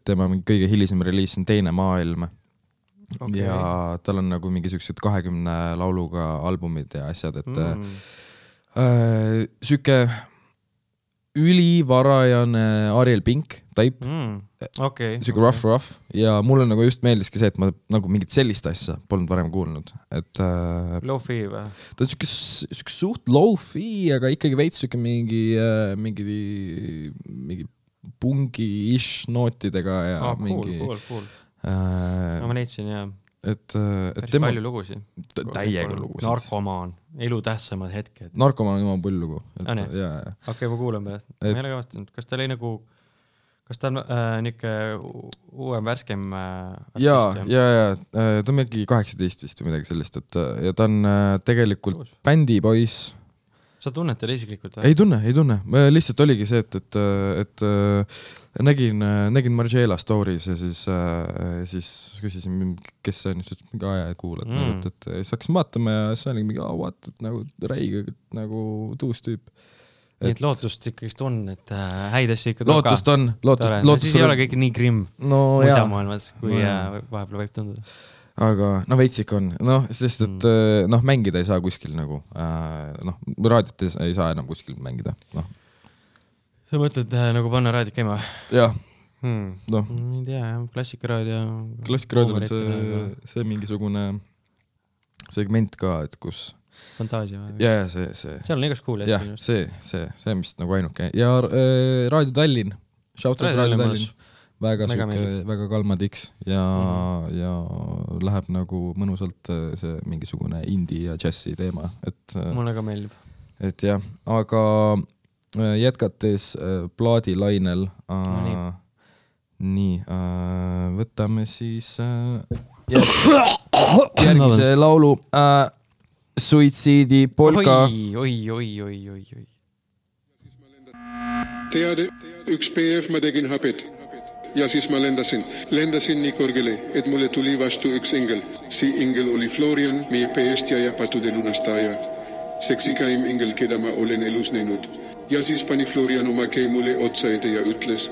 tema kõige hilisem reliis on Teine maailm ja tal on nagu mingi sellised 20 lauluga albumid ja asjad, et süke ülivarajane Ariel Pink type, süke rough ja mulle nagu just meeldiski see, et ma nagu mingit sellist asja polnud varem kuulnud, et low-fi või? Ta on süke suht low-fi, aga ikkagi veits süke mingi pungi-ish nootidega ja mingi cool. Ma leidsin jah. Et tema palju lugusid. Täiega lugusid. Narkomaan, elu tähtsamad hetked. Narkomaan on jumal pull lugu. Okei, ma kuulen pärast. Ma ei ole kavastanud. Kas ta oli nagu, kas ta on niuke uuem värskem artist? Ja. Ta on mingi 18 vist või midagi sellist, et ja ta on tegelikult bändipoiss. Sa tunned teile isiklikult? Ei tunne. Lihtsalt oligi see, et nägin Margiela stories ja siis küsisin, kes see on, siis mingi aja kuulad, et siis hakkasin vaatama ja siis oli mingi, et nagu räige, nagu tuus tüüp. Nii et lootust ikkagi on, et häid asju ikka lootust on. Siis ei ole kõik nii grimm muisamaailmas, kui vahepeal võib tunduda. Aga veits ikka on, sest et mängida ei saa kuskil nagu, raadiot ei saa enam kuskil mängida, Sa mõtled nagu panna raadiot käima? Jah. Ei tea, klassikaraadio on see mingisugune segment ka, et kus Fantaasia või? Ja see seal on igast kuuli asju. See on vist nagu ainuke ja Raadio Tallinn, shoutout Raadio Tallinn, väga kalma tiks ja läheb nagu mõnusalt see mingisugune indie ja džässi teema, et mulle ka meeldib, et jah, aga jätkates plaadilainel nii, võtame siis järgmise laulu Suitsiidi polka. Oi. Teade, üks PF ma tegin hapet ja siis ma lendasin nii kõrgele, et mulle tuli vastu üks engel. See engel oli Florian, meie päästja ja pattude lunastaja. Seksikaim engel, keda ma olen elus näinud. Ja siis pani Florian oma käi mulle otsa ette ja ütles,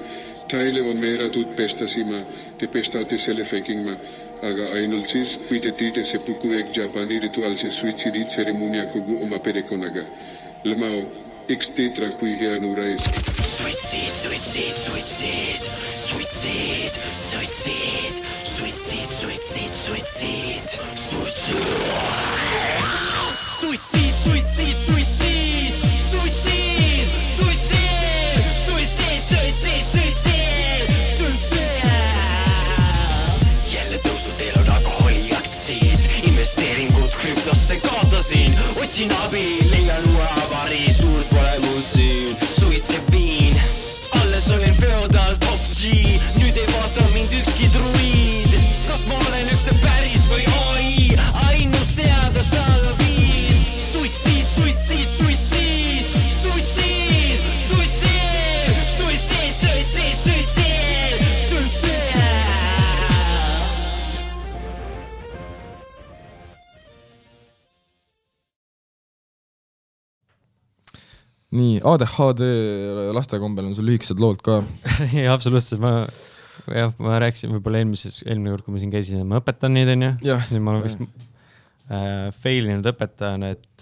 teile on määratud pestasima, te pestate selle fängima. Aga ainult siis, kui te teete see puku ehk Japani rituaalse suitsiiditseremonia kogu oma perekonnaga. Lemao, eks teetra kui hea nurais. Investeeringud krüptosse kaotasin, otsin abi, leian uue avari, suurt pole muud siin. Suitseb viin, alles olin feodal top G, nüüd ei vaata mind ükski druid. Kas ma olen üks päris või AI, ainus teada saada viis. Suitsiid. Nii, ADHD lastekombel on sul lühikesed lood ka. Ja, absoluutselt. Ma rääkisin võib-olla eelmine kord, kui ma siin käisin, ma õpetan neid, on ju. Nüüd ma olen vist failinud õpetajana, et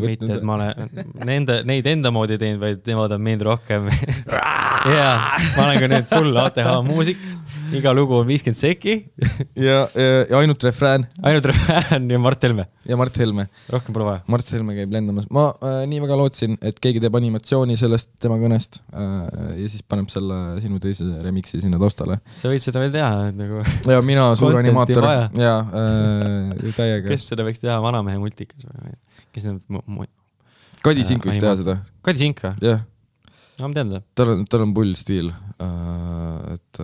mitte, et ma olen neid enda moodi teinud, vaid nemad on meid rohkem. Ja, ma olen ka nüüd full ATH muusik. Iga lugu on 50 seki. Ja ainult refrään. Ainult refrään ja Mart Helme. Ja Mart Helme. Rohkem pole vaja. Mart Helme käib lendamas. Ma nii väga lootsin, et keegi teeb animatsiooni sellest tema kõnest ja siis paneb selle sinu teise remixi sinna taustale. Sa võid seda veel teha. Nagu ja mina suur animaator. Ja täiega. Kes seda võiks teha vanamehe multikas? Kes Kadi Sink võiks teha seda. Kadi Sink või? Jah. No, ma tean tal on pull stiil. Et...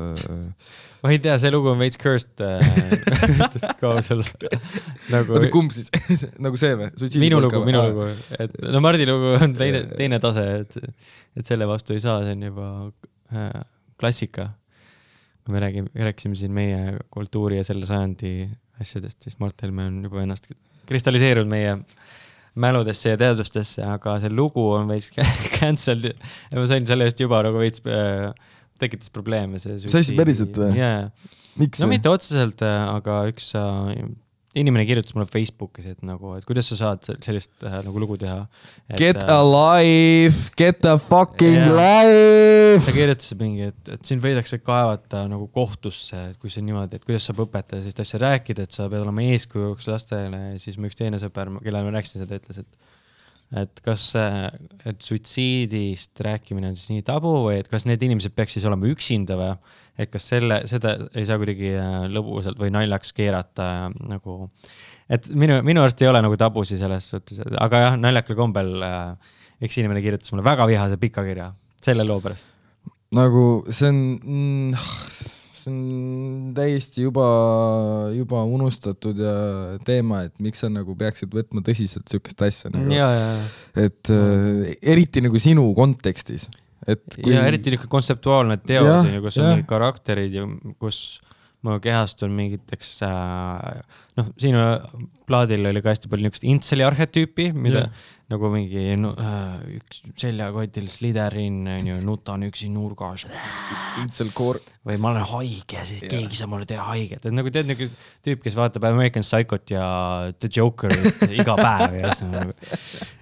ma ei tea, see lugu on veits cursed kausel. Oota, kumb siis? Nagu see või? Minu lugu. Et, no Mardi lugu on teine tase, et selle vastu ei saa, see on juba klassika. Kui me rääkisime siin meie kultuuri ja selle sajandi asjadest, siis Mart Helme on juba ennast kristalliseerunud meie mäludesse ja teadustesse, aga see lugu on veits cancelled ja ma sain selle just juba nagu veits tekitas probleeme. Sa esi päriselt või? Yeah. Miks? No mitte otseselt, aga üks inimene kirjutas mulle Facebookis, et kuidas sa saad sellist nagu lugu teha. Get a life, get a fucking life! Ta kirjutas mingi, et siin võidakse kaevata nagu kohtusse, et kui see on niimoodi, et kuidas saab õpetada sellist asja rääkida, et sa pead olema eeskujuks lastele, ja siis mu üks teine sõber, kellele ma rääkisin seda, ütles, et kas et suitsiidist rääkimine on siis nii tabu või et kas need inimesed peaks siis olema üksinda või et kas seda ei saa kuidagi lõbusalt või naljaks keerata nagu, et minu arust ei ole nagu tabusi selles suhtes, aga jah, naljakal kombel üks inimene kirjutas mulle väga vihase pika kirja selle loo pärast. Nagu see on täiesti juba unustatud ja teema, et miks sa nagu peaksid võtma tõsiselt sükest asja nagu. Et eriti nagu sinu kontekstis. Ja eriti kontseptuaalne teos, kus on mingid karakterid ja kus ma kehastun mingiteks sinu plaadil oli ka hästi palju niisugust intseli arhetüüpi, mida nagu mingi üks seljakotil Slytherin, nutan üksi nurgas Intselkoor või ma olen haige, siis keegi saab mulle teha haiget, et nagu tead nagu tüüp, kes vaatab American Psychot ja The Joker iga päev ja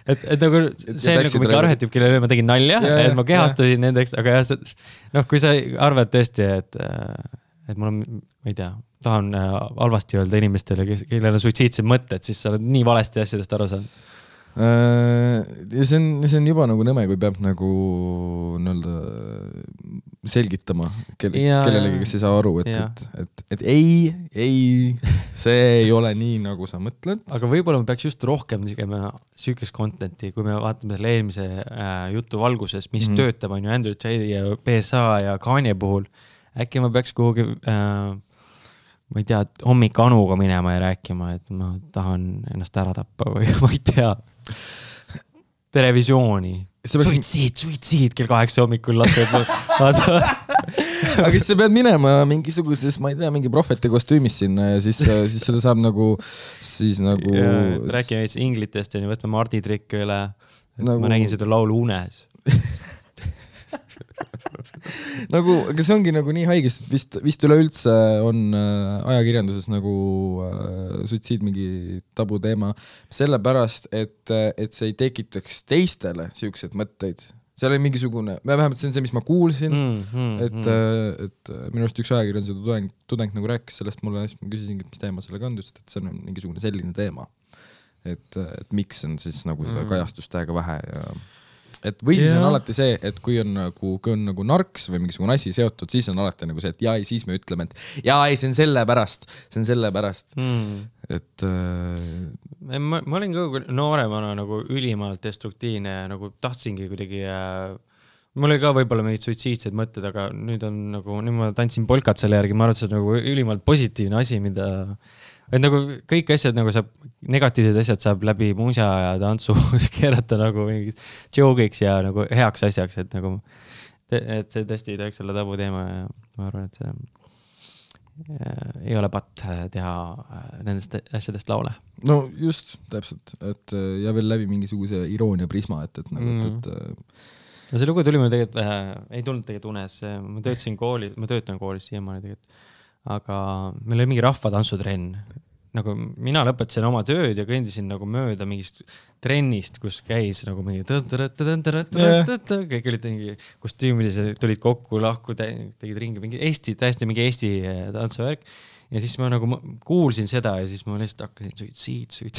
et nagu see on nagu mingi arhetüüp, kellele ma tegin nalja, et ma kehastusin nendeks, aga jah, kui sa arvad tõesti, et mul on, ma ei tea, tahan halvasti öelda inimestele, kellel on suitsiidsed mõtted, siis sa oled nii valesti asjadest aru saanud. Ja see on juba nagu nõme, kui peab nagu selgitama kellelegi, kes ei saa aru, et ei, see ei ole nii, nagu sa mõtled. Aga võib-olla me peaks just rohkem tegema sükest contenti, kui me vaatame selle eelmise jutu valguses, mis töötab on ju Andrew Tate ja PSA ja Kanye puhul. Äkki ma peaks kuhugi, ma ei tea, hommik Anuga minema ja rääkima, et ma tahan ennast ära tappa või ma ei tea. Televisiooni. Suitsiid kell 8 hommikul lased. Aga siis sa pead minema mingisuguses, ma ei tea, mingi prohveti kostüümis sinna ja siis seda saab nagu rääkime inglitest ja võtme Mardi trikke üle. Ma nägin seda laulu unes. aga see ongi nagu nii haigest, et vist üleüldse on ajakirjanduses nagu suitsiid mingi tabu teema, sellepärast, et see ei tekitaks teistele siuksed mõtteid. See oli mingisugune, vähemalt see on see, mis ma kuulsin, et minu arust üks ajakirjanduse tudeng nagu rääkis sellest mulle, siis ma küsisin, mis teema sellega on, et see on mingisugune selline teema, et miks on siis nagu seda kajastustega vähe ja või siis on alati see, et kui on nagu narks või mingisugune asi seotud, siis on alati nagu see, et siis me ütleme, et see on selle pärast. Et ma olin ka nooremana nagu ülimalt destruktiivne ja nagu tahtsingi kuidagi mul oli ka võib-olla mingid suitsiidsed mõtted, aga nüüd ma tantsin polkat selle järgi, ma arvan, et see on nagu ülimalt positiivne asi, mida et nagu kõik asjad nagu saab, negatiivsed asjad saab läbi muusja ja tantsu keerata nagu mingis joke'iks ja nagu heaks asjaks, et nagu et see tõesti ei tohiks olla tabu teema ja ma arvan, et see ei ole patt teha nendest asjadest laule. No just, täpselt, et ja veel läbi mingisuguse iroonia prisma, et No see lugu tuli mul tegelikult, ei tulnud tegelikult unes, ma töötan koolis siiamaani tegelikult. Aga meil oli mingi rahvatantsutrenn. Nagu mina lõpetasin oma tööd ja kõndisin nagu mööda mingist trennist, kus käis nagu mingi kõik olid mingi kostüümilised, tulid kokku, lahku, tegid ringi mingi täiesti mingi Eesti tantsuvärk. Ja siis ma nagu kuulsin seda ja siis ma lihtsalt hakkasin suitsiid.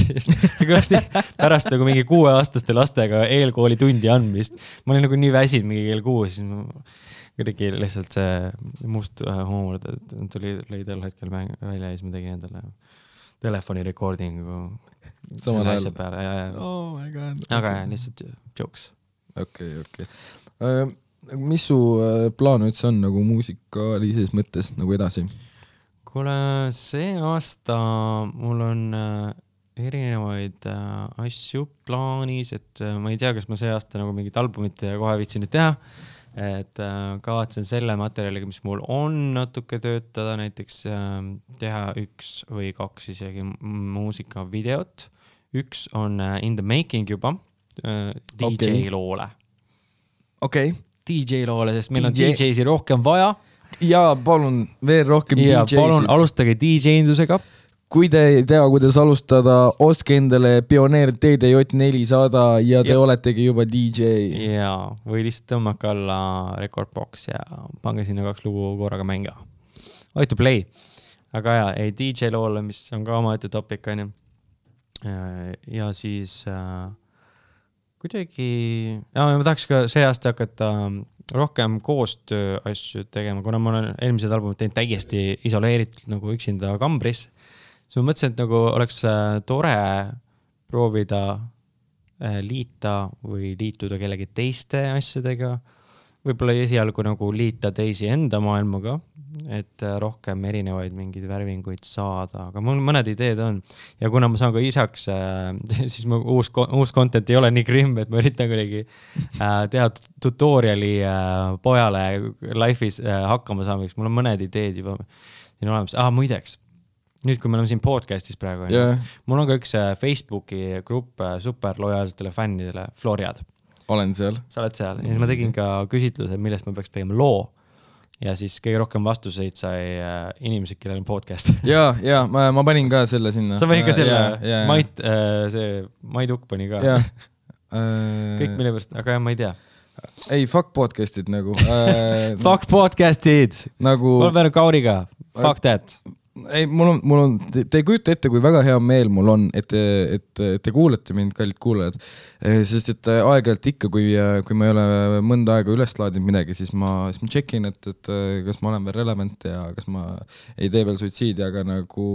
Pärast nagu mingi 6-aastaste lastega eelkooli tundi andmist. Ma olin nagu nii väsinud mingi kell 6, siis ma kuidagi lihtsalt see must huumor lõi tol hetkel välja ja siis ma tegin endale telefoni recordingu samal ajal peale. Oh my god. Aga lihtsalt jokes. Okay. mis su plaan üldse on nagu muusikalises mõttes nagu edasi? Kuule, see aasta mul on erinevaid asju plaanis, et ma ei tea, kas ma see aasta nagu mingit albumit kohe viitsin nüüd teha. Et kavatsen selle materjaliga, mis mul on natuke töötada, näiteks teha 1 või 2 isegi muusikavideot. 1 on in the making juba DJ loole. DJ loole, sest meil on DJ-si rohkem vaja. Ja palun veel rohkem DJ-sid. Palun alustage DJ-indusega. Kui te ei tea, kuidas alustada, ostke endale Pioneer TDJ400 ja te oletegi juba DJ. Jaa, või lihtsalt tõmmake alla Recordbox ja pange sinna 2 lugu korraga mänga. Oi to play. Aga jaa, ei DJ loole, mis on ka oma ette topik, on ju. Ja siis kuidagi... Ja ma tahaks ka see aasta hakata rohkem koostöö asju tegema, kuna ma olen eelmised albumid teinud täiesti isoleeritud nagu üksinda kambris. So ma mõtlesin, et nagu oleks tore proovida liita või liituda kellegi teiste asjadega. Võib-olla esialgu nagu liita teisi enda maailmaga, et rohkem erinevaid mingeid värvinguid saada. Aga mul mõned ideed on. Ja kuna ma saan ka isaks, siis mu uus content ei ole nii grimm, et ma üritan kuidagi teha tutoriali pojale life'is hakkama saamiseks. Mul on mõned ideed juba siin olemas. Muideks. Nüüd, kui me oleme siin podcastis praegu, mul on ka üks Facebooki grupp superlojaalsetele fännidele, Floriad. Olen seal. Sa oled seal. Ja siis ma tegin ka küsitluse, millest ma peaks tegema loo. Ja siis kõige rohkem vastuseid sai inimesed, kellel on podcast. Ja, ma panin ka selle sinna. Sa panin ka selle? Mait Ukk pani ka. Kõik mille pärast, aga ma ei tea. Ei, fuck podcastid nagu. Fuck podcastid! Nagu... Mul peale Kauriga. Fuck that! Ei, mul on, te ei kujuta ette, kui väga hea meel mul on, et te kuulete mind, kallid kuulajad, sest et aeg-ajalt ikka, kui ma ei ole mõnda aega üles laadinud midagi, siis ma checkin, et kas ma olen veel relevant ja kas ma ei tee veel suitsiidi, aga nagu...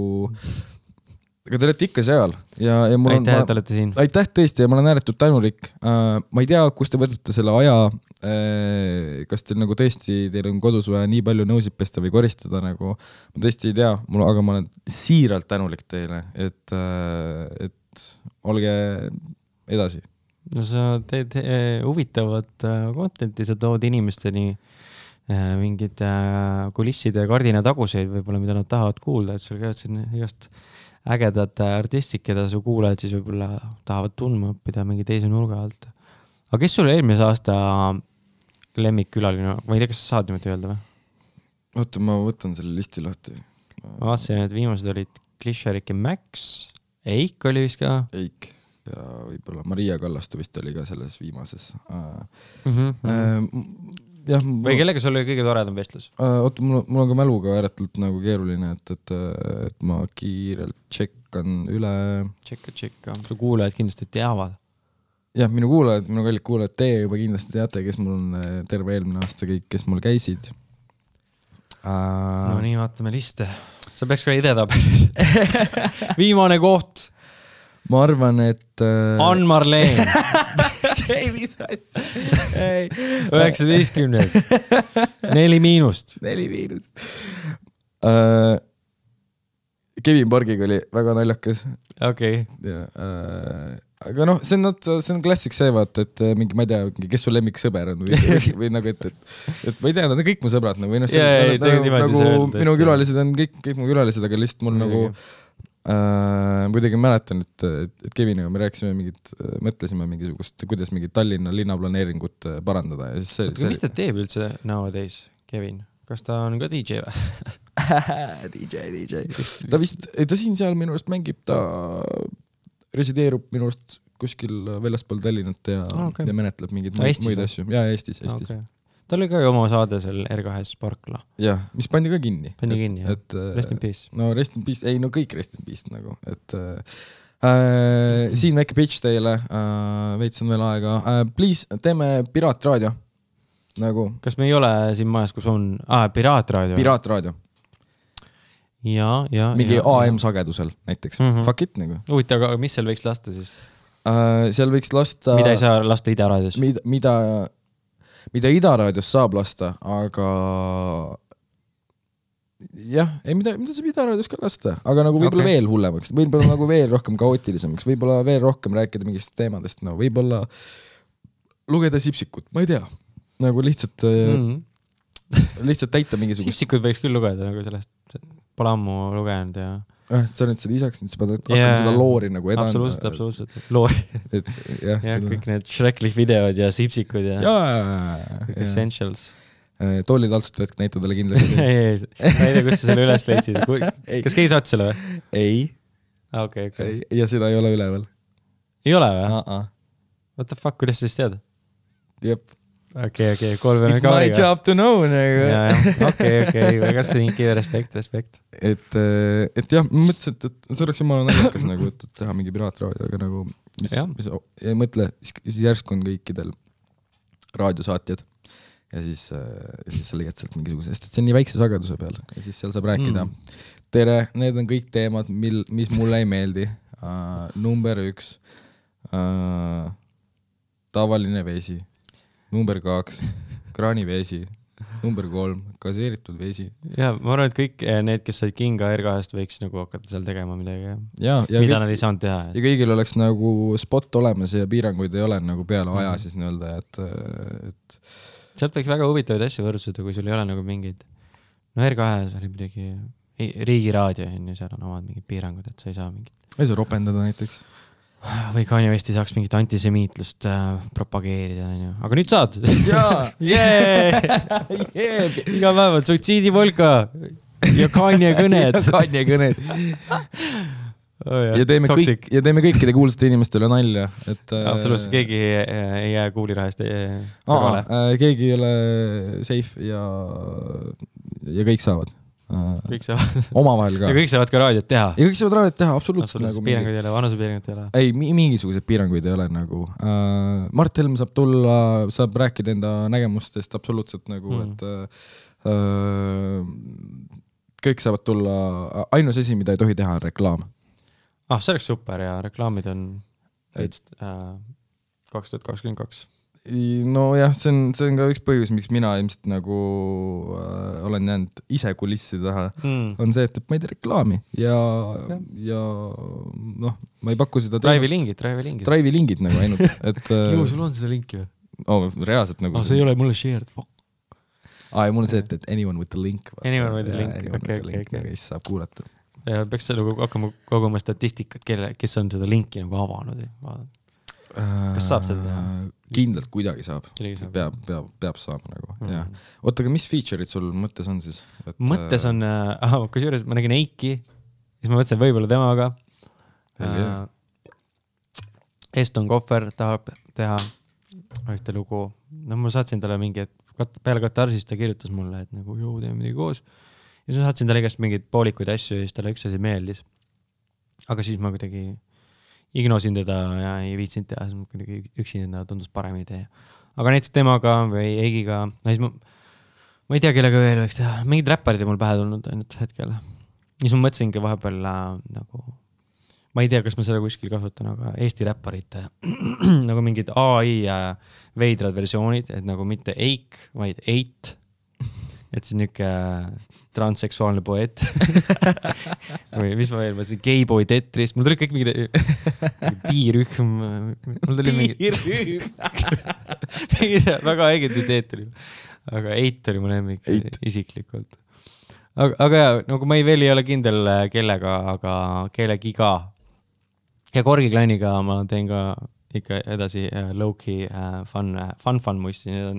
Aga te olete ikka seal. Ja mul on, aitäh, et olete siin. Aitäh tõesti ja ma olen ääretult tänulik. Ma ei tea, kus te võtate selle aja, kas teil nagu tõesti, teil on kodus vaja nii palju nõusid pesta või koristada, nagu ma tõesti ei tea, aga ma olen siiralt tänulik teile, et olge edasi. No sa teed huvitavat contenti, sa tood inimesteni mingid kulisside ja kardina taguseid võib-olla, mida nad tahavad kuulda, et sul käivad siin igast ägedad artistid, keda su kuulajad siis võib-olla tahavad tundma õppida mingi teise nurga alt. Aga kes sul eelmise aasta lemmikkülaline? Ma ei tea, kas sa saad niimoodi öelda või? Oota, ma võtan selle listi lahti. Ma vaatasin, et viimased olid Klisharik ja Max. Eik oli vist ka? Eik ja võib-olla Maria Kallastu vist oli ka selles viimases. Või kellega sul oli kõige toredam vestlus? Oota, mul on ka mäluga ääretult nagu keeruline, et ma kiirelt tšekkan üle. Tšekka. Su kuulajad kindlasti teavad. Jah, minu kallid kuulajad, te juba kindlasti teate, kes mul on terve eelmine aasta kõik, kes mul käisid. No nii, vaatame liste. Sa peaks ka idetabelis. Viimane koht. Ma arvan, et... Ann-Marleen. Ei, mis asja. 19. 4-. Kevin Borgiga oli väga naljakas. Okei. Aga noh, see on klassik see, vaata, et mingi, ma ei tea, kes su lemmiksõber on või nagu, et ma ei tea, nad on kõik mu sõbrad nagu, minu külalised on kõik mu külalised, aga lihtsalt mul nagu kuidagi mäletan, et Keviniga me rääkisime mõtlesime mingisugust, kuidas mingit Tallinna linnaplaneeringut parandada. Ja siis mis ta teeb üldse nowadays, Kevin? Kas ta on ka DJ või? DJ. Ta siin seal minu arust mängib, ta resideerub minu arust kuskil väljaspool Tallinnat ja menetleb mingeid muid asju. Ja Eestis. Okay. Ta oli ka ju oma saade seal R2 Sparkla. Jah, mis pandi ka kinni. Rest in peace. No rest in peace, kõik rest in peace nagu. Siin väike pitch teile, veits on veel aega. Please, teeme piraatraadio. Nagu. Kas me ei ole siin majas, kus on... piraatraadio. Piraatraadio. Ja. Mingi AM-sagedusel näiteks. Fuck it nagu. Huvita, aga mis seal võiks lasta siis? Seal võiks lasta... Mida ei saa lasta Ida raadios? Mida... mida Ida raadios saab lasta, aga jah, ei mida saab Ida raadios ka lasta, aga nagu võib-olla veel hullemaks, võib-olla nagu veel rohkem kaootilisemaks, võib-olla veel rohkem rääkida mingist teemadest, no võib-olla lugeda Sipsikut, ma ei tea, nagu lihtsalt lihtsalt täita mingisugust. Sipsikut võiks küll lugeda nagu sellest, pole ammu lugenud ja sa nüüd seda isaks, nüüd sa pead hakkama seda loori nagu edanda. Absoluutselt. Loori. Ja kõik need Shrekli videod ja Sipsikud ja kõik essentials. Tolli taltsutajad näita talle kindlasti. ei, ma ei tea, kus sa selle üles leidsid. Kas keegi saatis selle või? Ei. Okay. Ja seda ei ole üleval. Ei ole või? What the fuck, kuidas sa siis tead? Jep. Okay, kolm It's my job to know. Okay, väga see respekt. Et jah, ma mõtlesin, et see oleks jumala naljakas nagu, et teha mingi piraatraadio, aga nagu ei mõtle, siis järsku on kõikidel raadiosaatjad ja siis sa leiad sealt mingisuguse, sest see on nii väikse sageduse peal ja siis seal saab rääkida. Tere, need on kõik teemad, mis mulle ei meeldi. Number 1 tavaline vesi. Number 2 kraaniveesi. Number 3 gaseeritud vesi. Ja ma arvan, et kõik need, kes said Kinga R2-st võiks nagu hakata seal tegema midagi. Mida nad ei saanud teha. Ja kõigil oleks nagu spot olemas ja piiranguid ei ole nagu peale aja siis nii-öelda, et sealt võiks väga huvitavaid asju võrdsuda, kui sul ei ole nagu mingid R2-s oli midagi riigiraadio, seal on omad mingid piirangud, et sa ei saa mingit. Ei saa ropendada näiteks. Või Kanye West ei saaks mingit antisemiitlust propageerida, aga nüüd saad. Iga päev on suitsiidipolka ja Kanye kõned. Ja teeme kõikide kuulsate inimestele nalja. Absoluutselt, keegi ei jää kuulirahast kõrvale. Keegi ei ole safe ja kõik saavad. Kõik saavad. Omavahel ka. Ja kõik saavad ka raadiot teha. Ja kõik saavad raadiot teha, absoluutselt. Piiranguid ei ole, vanusepiiranguid ei ole. Ei, mingisugused piiranguid ei ole nagu. Mart Helm saab tulla, saab rääkida enda nägemustest absoluutselt nagu, et kõik saavad tulla. Ainus asi, mida ei tohi teha, on reklaam. See oleks super ja reklaamid on 2022. No jah, see on ka üks põhjus, miks mina ilmselt nagu olen jäänud ise kulissi taha, on see, et ma ei tee reklaami ja noh, ma ei paku seda Drive'i lingid nagu ainult, et Ju, sul on seda linki või? Reaalselt nagu see ei ole mulle shared, fuck. Mul on see, et anyone with the link. Anyone with the link, okei. Kes saab kuulata. Ja peaks nagu hakkama koguma statistikat, kes on seda linki nagu avanud. Kas saab seda teha? Kindlalt kuidagi saab. Peab saama nagu. Oota, aga mis feature'id sul mõttes on siis? Mõttes on, kus juures ma nägin Eiki, siis ma mõtlesin võibolla temaga. Eston Kohver tahab teha ühte lugu. Ma saatsin talle mingi, et peale Katarsist ta kirjutas mulle, et nagu teeme midagi koos. Ja siis ma saatsin talle igast mingeid poolikuid asju ja siis talle üks asi meeldis. Aga siis ma kuidagi ignosin teda ja ei viitsinud teha, siis kuidagi üksinda tundus parem idee. Aga näiteks temaga või Eigiga, siis ma ei tea, kellega veel võiks teha. Mingid räpparid ei mul pähe tulnud ainult hetkel. Siis ma mõtlesingi vahepeal nagu, ma ei tea, kas ma seda kuskil kasutan, aga Eesti räpparite nagu mingid AI veidrad versioonid, et nagu mitte Eik, vaid Eit. Et see niuke transseksuaalne poeet. Või mis ma veel, ma siin Gayboy Tetris, mul tuli kõik mingid piirühm. Piirühm. Väga äiged ideed tuli. Aga Eit oli mu lemmik isiklikult. Aga jah, nagu ma veel ei ole kindel kellega, aga kellegiga. Ja Korgi Klanniga ma teen ka ikka edasi low-key fun mussi. Need on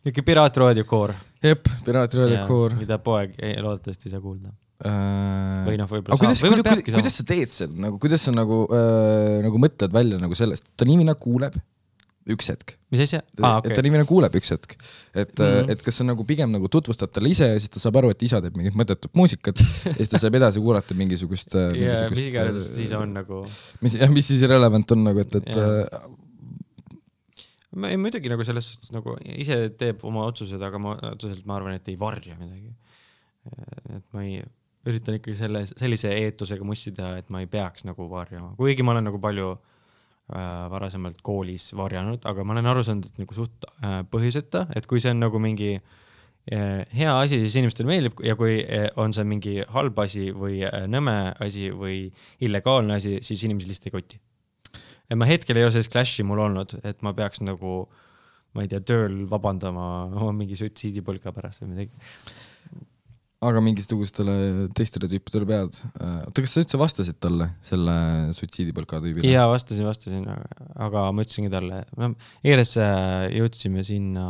niuke piraatraadio koor. Jep, piraatraadio koor. Mida poeg loodetavasti ei saa kuulda. Või võib-olla saab. Kuidas sa teed seda? Kuidas sa nagu mõtled välja nagu sellest? Ta inimene kuuleb üks hetk. Mis asja? Et ta inimene kuuleb üks hetk. Et kas sa nagu pigem nagu tutvustad talle ise ja siis ta saab aru, et isa teeb mingit mõttetut muusikat ja siis ta saab edasi kuulata mingisugust mis iganes siis on nagu mis siis relevant on nagu, et muidugi nagu selles suhtes nagu ise teeb oma otsused, aga ma arvan, et ei varja midagi. Et ma ei üritan ikkagi sellise eetusega mussi teha, et ma ei peaks nagu varjama. Kuigi ma olen nagu palju varasemalt koolis varjanud, aga ma olen aru saanud, et nagu suht põhjuseta, et kui see on nagu mingi hea asi, siis inimestele meeldib ja kui on see mingi halb asi või nõme asi või illegaalne asi, siis inimesed lihtsalt ei koti. Ja ma hetkel ei ole sellist clashi mul olnud, et ma peaks nagu, ma ei tea, tööl vabandama oma mingi suitsiidipõlka pärast või midagi. Aga mingisugustele teistele tüüpidele pead. Oota, kas sa üldse vastasid talle selle suitsiidipõlka tüübile? Jaa, vastasin, aga ma ütlesingi talle. Eires jõudsime sinna,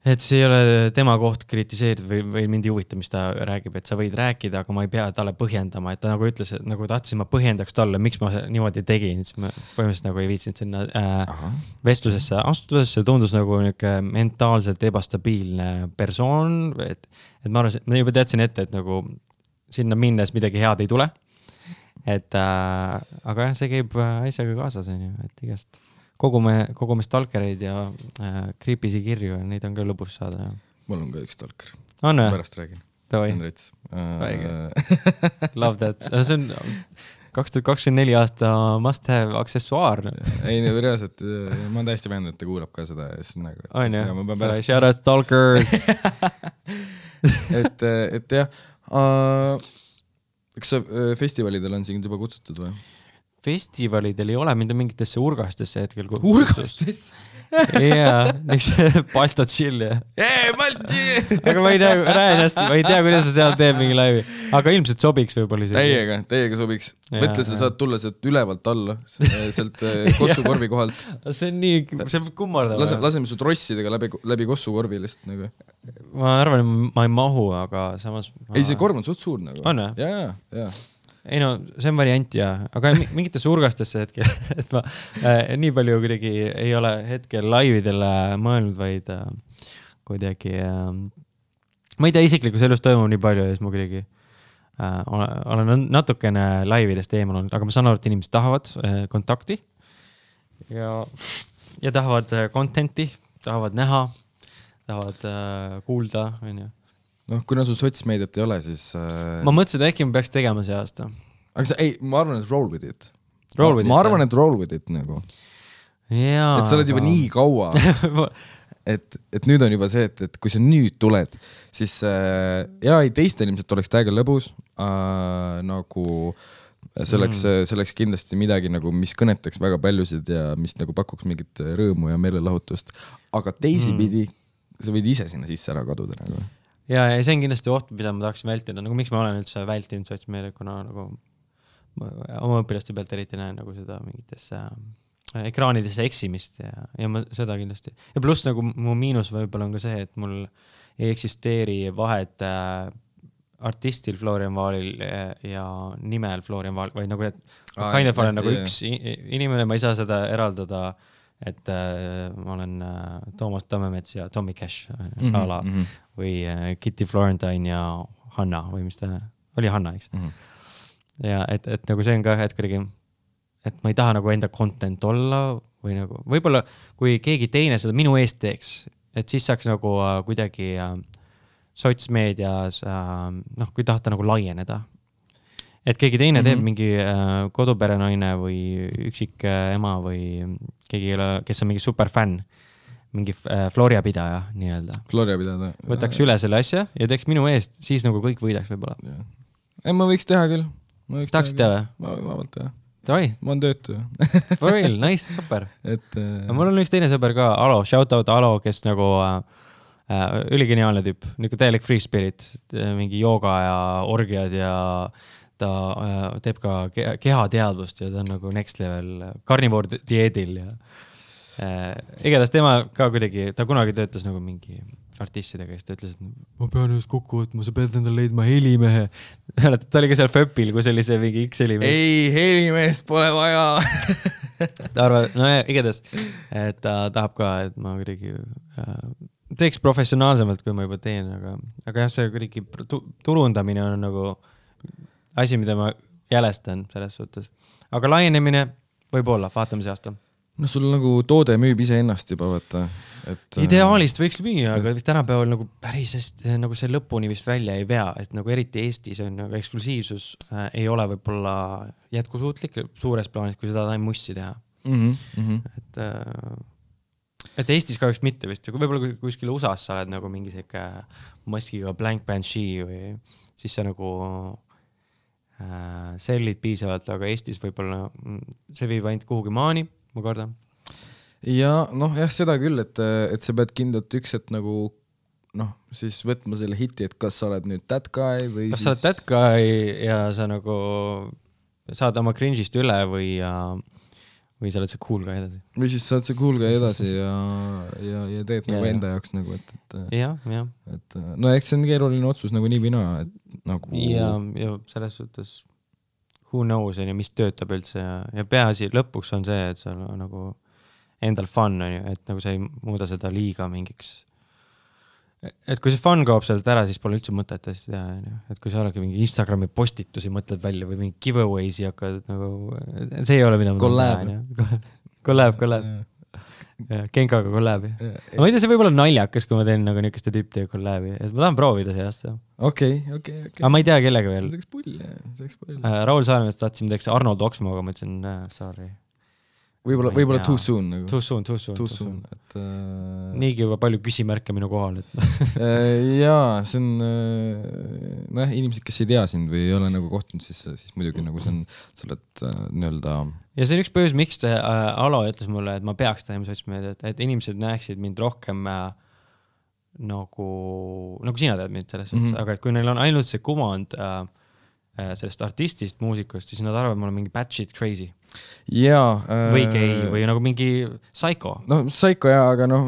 et see ei ole tema koht kritiseerida või mind ei huvita, mis ta räägib, et sa võid rääkida, aga ma ei pea talle põhjendama, et ta nagu ütles, et nagu tahtsin ma põhjendaks talle, miks ma niimoodi tegin, siis ma põhimõtteliselt nagu ei viitsinud sinna vestlusesse astudes, see tundus nagu mentaalselt ebastabiilne persoon, et ma arvan, ma juba teadsin ette, et nagu sinna minnes midagi head ei tule, aga jah, see käib asjaga kaasas, et igast kogume stalkereid ja creepy'si kirju ja neid on ka lõbus saada. Mul on ka üks stalker. On või? Pärast räägin. Tavai. Love that. See on 2024 aasta must have aksessuaar. Ei, reaalselt, ma olen täiesti veendunud, et ta kuulab ka seda. On ju? Shout out stalkers! et jah, kas sa festivalidel on siin juba kutsutud või? Festivalidel ei ole mind mingitesse urgastesse hetkel. Urgastesse? Jaa, niks Balta chill ja. Balta chill! Aga ma ei tea, kuidas sa seal teeb mingi laivi. Aga ilmselt sobiks võib-olla isegi. Teiega sobiks. Mõtle, sa saad tulla sealt ülevalt alla, sealt kossukorvi kohalt. See on nii, see on kummardama. Laseme su trossidega läbi kossukorvi lihtsalt nagu. Ma arvan, et ma ei mahu, aga samas... Ei, see korv on suht suur nagu. On või? Jaa. Ei no, see on variant ja, aga mingitesse urgastesse hetkel, et ma nii palju kuidagi ei ole hetkel laividele mõelnud, vaid kuidagi, ma ei tea, isiklikus elus toimub nii palju ja siis ma kuidagi olen natukene laividest eemal olnud, aga ma saan aru, et inimesed tahavad kontakti ja tahavad contenti, tahavad näha, tahavad kuulda, on ju. Noh, kuna sul sotsmeediat ei ole, siis... Ma mõtlesin, et äkki ma peaks tegema see aasta. Aga ma arvan, et roll with it. Ma arvan, et roll with it nagu. Jaa. Et sa oled juba nii kaua, et nüüd on juba see, et kui sa nüüd tuled, siis teistel ilmselt oleks täiega lõbus, nagu selleks kindlasti midagi, nagu, mis kõnetaks väga paljusid ja mis nagu pakuks mingit rõõmu ja meelelahutust. Aga teisipidi sa võid ise sinna sisse ära kaduda nagu. Ja see on kindlasti oht, mida ma tahaksin vältida. Nagu miks ma olen üldse vältinud sotsmeediat, kuna nagu oma õpilaste pealt eriti näen nagu seda mingitesse ekraanidesse eksimist ja ma seda kindlasti. Ja pluss nagu mu miinus võib-olla on ka see, et mul ei eksisteeri vahet artistil Florian Vaalil ja nimel Florian Vaal, vaid nagu, et kind of olen nagu üks inimene, ma ei saa seda eraldada, et ma olen Toomas Tammemets ja Tommy Cash ala või Kitty Florentine ja Hanna või mis ta oli Hanna, eks? Ja et nagu see on ka hetkelegi, et ma ei taha nagu enda content olla või nagu, võib-olla kui keegi teine seda minu eest teeks, et siis saaks nagu kuidagi sotsmeedias, kui tahta nagu laieneda. Et keegi teine teeb mingi koduperenaine või üksik ema või keegi, kes on mingi superfänn, mingi Floria pidaja nii-öelda. Floria pidaja. Võtaks üle selle asja ja teeks minu eest, siis nagu kõik võidaks võib-olla. Ei, ma võiks teha küll. Tahaks teha või? Ma vabalt teha. Tavai. Ma on töötu. For real, nice, super. Mul on üks teine sõber ka, Alo, shout out Alo, kes nagu üligeniaalne tüüp, nagu täielik free spirit, mingi jooga ja orgiad ja ta teeb ka kehateadvust ja ta on nagu next level carnivore dieedil ja igatahes tema ka kuidagi, ta kunagi töötas nagu mingi artistidega, kes ta ütles, et ma pean just kokku võtma, sa pead endale leidma helimehe. Ta oli ka seal Föpil, kui sellise mingi X-helimehe. Ei, helimehest pole vaja. Ta arvab, no igatahes, et ta tahab ka, et ma kuidagi teeks professionaalsemalt, kui ma juba teen, aga jah, see kuidagi turundamine on nagu asi, mida ma jälestan selles suhtes. Aga laienemine võib olla, vaatame see aasta. No sul nagu toode müüb ise ennast juba, võtta. Ideaalist võiks müüa, aga tänapäeval nagu päris nagu see lõpuni vist välja ei vea, et nagu eriti Eestis on nagu eksklusiivsus ei ole võibolla jätkusuutlik suures plaanis, kui seda taim mussi teha. Et Eestis kahjuks mitte vist, kui võibolla kuskil USA-s sa oled nagu mingi selline maskiga Blank Banshee või siis sa nagu sellid piisavalt, aga Eestis võibolla see viib ainult kuhugi maani, ma kardan. Ja jah, seda küll, et sa pead kindlalt üks, et nagu siis võtma selle hiti, et kas sa oled nüüd that guy või kas sa oled that guy ja sa nagu saad oma cringe'ist üle või sa oled see cool guy edasi. Või siis saad see cool guy edasi ja teed nagu enda jaoks nagu, ja. No eks see on keeruline otsus nagu nii vina, et nagu... Ja selles suhtes who knows, mis töötab üldse ja peaasi lõpuks on see, et sa nagu endal fun on ju, et nagu sa ei muuda seda liiga mingiks. Et kui see fun kaob sealt ära, siis pole üldse mõtet hästi teha. Et kui sa oledki mingi Instagrami postitusi mõtled välja või mingi giveaway'si hakkad nagu... See ei ole mida Collab. Genkaga collabi. Ma ei tea, see võib olla naljakas, kui ma teen nagu niisuguste tüüptega collabi. Et ma tahan proovida see aasta. Okei. Aga ma ei tea kellega veel. See oleks pull. Raul Saaremeest tahtsime teeks Arnold Oksmoga, ma ütlesin, sorry. Võib-olla too soon. Nagu. Too soon. Et, niigi juba palju küsimärke minu kohal. jaa, see on... inimesed, kes ei tea sind või ei ole nagu kohtunud, siis muidugi nagu see on... Sa oled nii-öelda... Ja see on üks põhjus, miks Alo ütles mulle, et ma peaks tahima sotsmeediat, et inimesed näeksid mind rohkem nagu sina tead mind selles suhtes, aga et kui neil on ainult see kuvand sellest artistist, muusikust, siis nad arvavad, et ma olen mingi bad shit crazy. Või gay, või nagu mingi psycho. Psycho jah, aga ma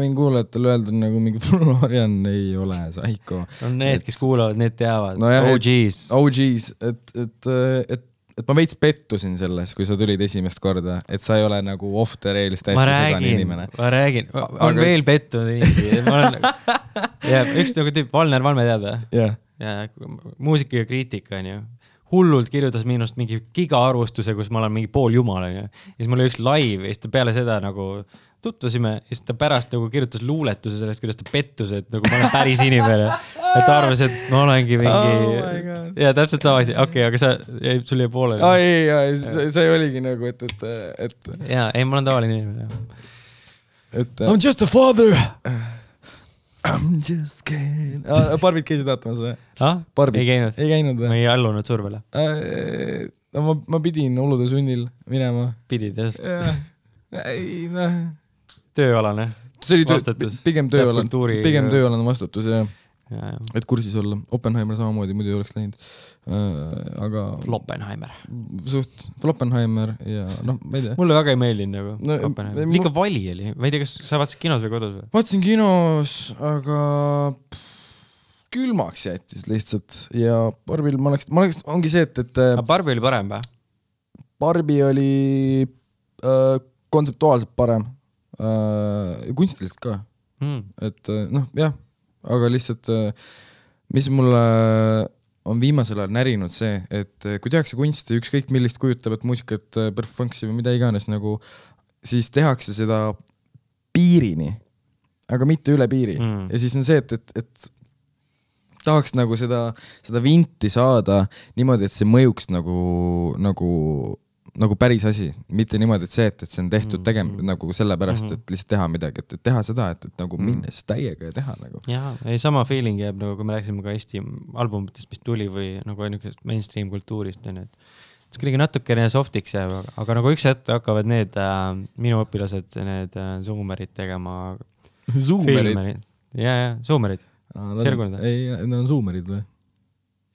võin kuulajatel öelda nagu mingi Florian ei ole psycho. Need, kes kuulavad, need teavad. OGs. Et ma veits pettusin selles, kui sa tulid esimest korda, et sa ei ole nagu off the rails täiesti sedani inimene. Ma räägin. On veel pettunud inimesi. Üks nagu tüüp, Valner Valme teada. Jah. Ja muusika ja kriitika on ju. Hullult kirjutas minust mingi giga-arvustuse, kus ma olen mingi pool jumal on ju. Ja siis mul oli üks live ja siis ta peale seda nagu tutvasime ja siis ta pärast nagu kirjutas luuletuse sellest, kuidas ta pettus, et nagu ma olen päris inimene. Et ta arvas, et ma olengi mingi... ja täpselt sama asi. Okei, aga sul jäi poolele. See oligi nagu, et... Jaa, ei, ma olen tavaline inimene. I'm just a father! I'm just kidding. Barbid käisid vaatamas või? Ei käinud. Ei käinud või? Ma ei allunud survele. Ma pidin olude sunnil minema. Pidid, jah? Ei, tööalane vastutus. Pigem tööalane vastutus, jah. Et kursis olla. Oppenheimer samamoodi, muidu ei oleks läinud. Aga... Floppenheimer. Floppenheimer ja ma ei tea. Mulle väga ei meeldinud nagu Oppenheimer. Liiga vali oli. Ma ei tea, kas sa vaatasid kinos või kodus või? Vaatasin kinos, aga külmaks jättis lihtsalt ja Barbil ma oleks ongi see, et... Aga Barbi oli parem või? Barbi oli kontseptuaalselt parem. Kunstiliselt ka. Et jah, aga lihtsalt mis mulle on viimasel ajal närinud see, et kui tehakse kunsti, ükskõik millist kujutavat muusikat, perfunksi või mida iganes, nagu, siis tehakse seda piirini, aga mitte üle piiri. Ja siis on see, et tahaks nagu seda vinti saada niimoodi, et see mõjuks nagu päris asi, mitte niimoodi, et see, et see on tehtud nagu sellepärast, et lihtsalt teha midagi, et teha seda, et nagu minnes täiega ja teha nagu. Jaa, ei sama feeling jääb, nagu kui me rääksime ka Eesti albumitest, mis tuli või nagu mainstream kultuurist, et kuidagi natukene softiks jääb, aga nagu üks hetk hakkavad need minu õpilased, need zoomerid tegema. Zoomerid? Jaa, zoomerid. Ei, need on zoomerid või?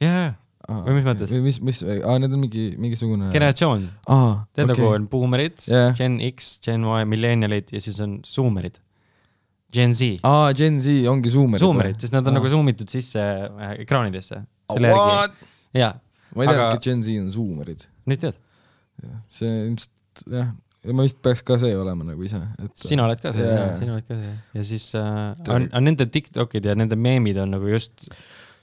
Jaa. Või mis mõttes? Need on mingisugune... Generatsioon. Tead nagu on boomerid, Gen X, Gen Y, millennialid ja siis on zoomerid. Gen Z. Gen Z ongi zoomerid. Zoomerid, sest nad on nagu zoomitud sisse ekraanidesse. What? Jaa. Ma ei tea, et Gen Z on zoomerid. Nüüd tead? See ilmselt, jah. Ma vist peaks ka see olema nagu ise. Sina oled ka see, sina oled ka see. Ja siis on nende TikTokid ja nende meemid on nagu just...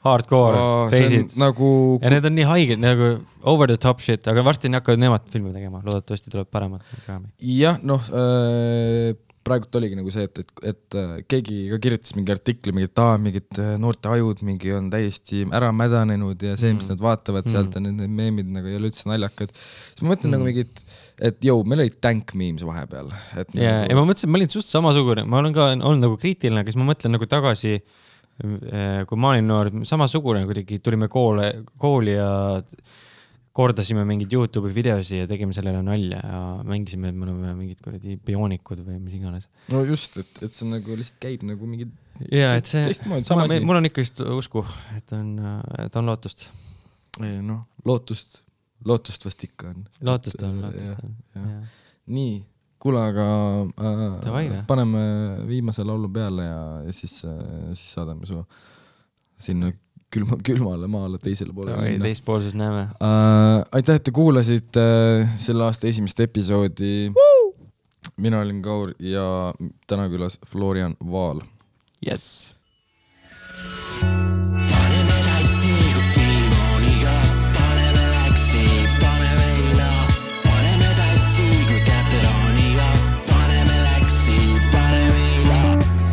hardcore reisid. Nagu... Ja need on nii haiged, nagu over the top shit, aga varsti hakkavad nemad filmi tegema, loodetavasti tuleb paremat. Jah, praegult oligi nagu see, et keegi ka kirjutas mingi artikli, mingid noorte ajud mingi on täiesti ära mädanenud ja see, mis nad vaatavad sealt ja need meemid nagu ei ole üldse naljakad. Siis ma mõtlen nagu mingid, et meil oli tank memes vahepeal. Ja ma mõtlesin, ma olin suht samasugune, ma olen ka olnud nagu kriitiline, aga siis ma mõtlen nagu tagasi, kui ma olin noor, samasugune, kuidagi tulime kooli ja kordasime mingid YouTube'i videosi ja tegime sellele nalja ja mängisime, et me oleme mingid bioonikud või mis iganes. No just, et see nagu lihtsalt käib nagu mingid teistmoodi sama asi. Mul on ikka just usku, et on lootust. Lootust vast ikka on. Lootust on. Nii, kuule, aga paneme viimase laulu peale ja siis saadame su sinna külmale maale teisele poole. Teispoolses näeme. Aitäh, et te kuulasite selle aasta esimest episoodi. Mina olin Kaur ja täna külas Florian Vaal. Yes. Paneme läti, kui film on iga. Paneme läksi, paneme ila. Paneme täti, kui teater on iga. Paneme läksi, paneme ila.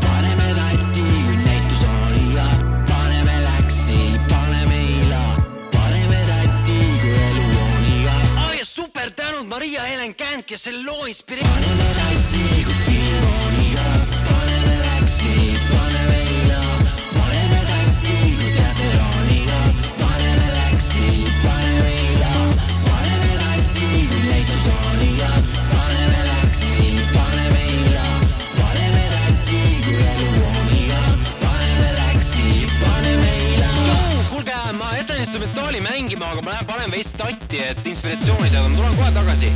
Paneme täti, kui näitus on iga. Paneme läksi, paneme ila. Paneme täti, kui elu on iga. Ja super tänud Maria Helen Känd, kes selle loo inspireerib. Paneme täti, kui film on iga. Paneme läksi, paneme ila. Paneme täti, kui teater on iga. Paneme läksi, paneme ila. Paneme täti, kui näitus on iga. Paneme läksi, paneme ila. Paneme täti, kui elu on iga. Paneme läksi, paneme ila. Kuulge, ma jätan instrumentaali mängima, aga ma panen veits tatti, et inspiratsiooni saada. Ma tulen kohe tagasi.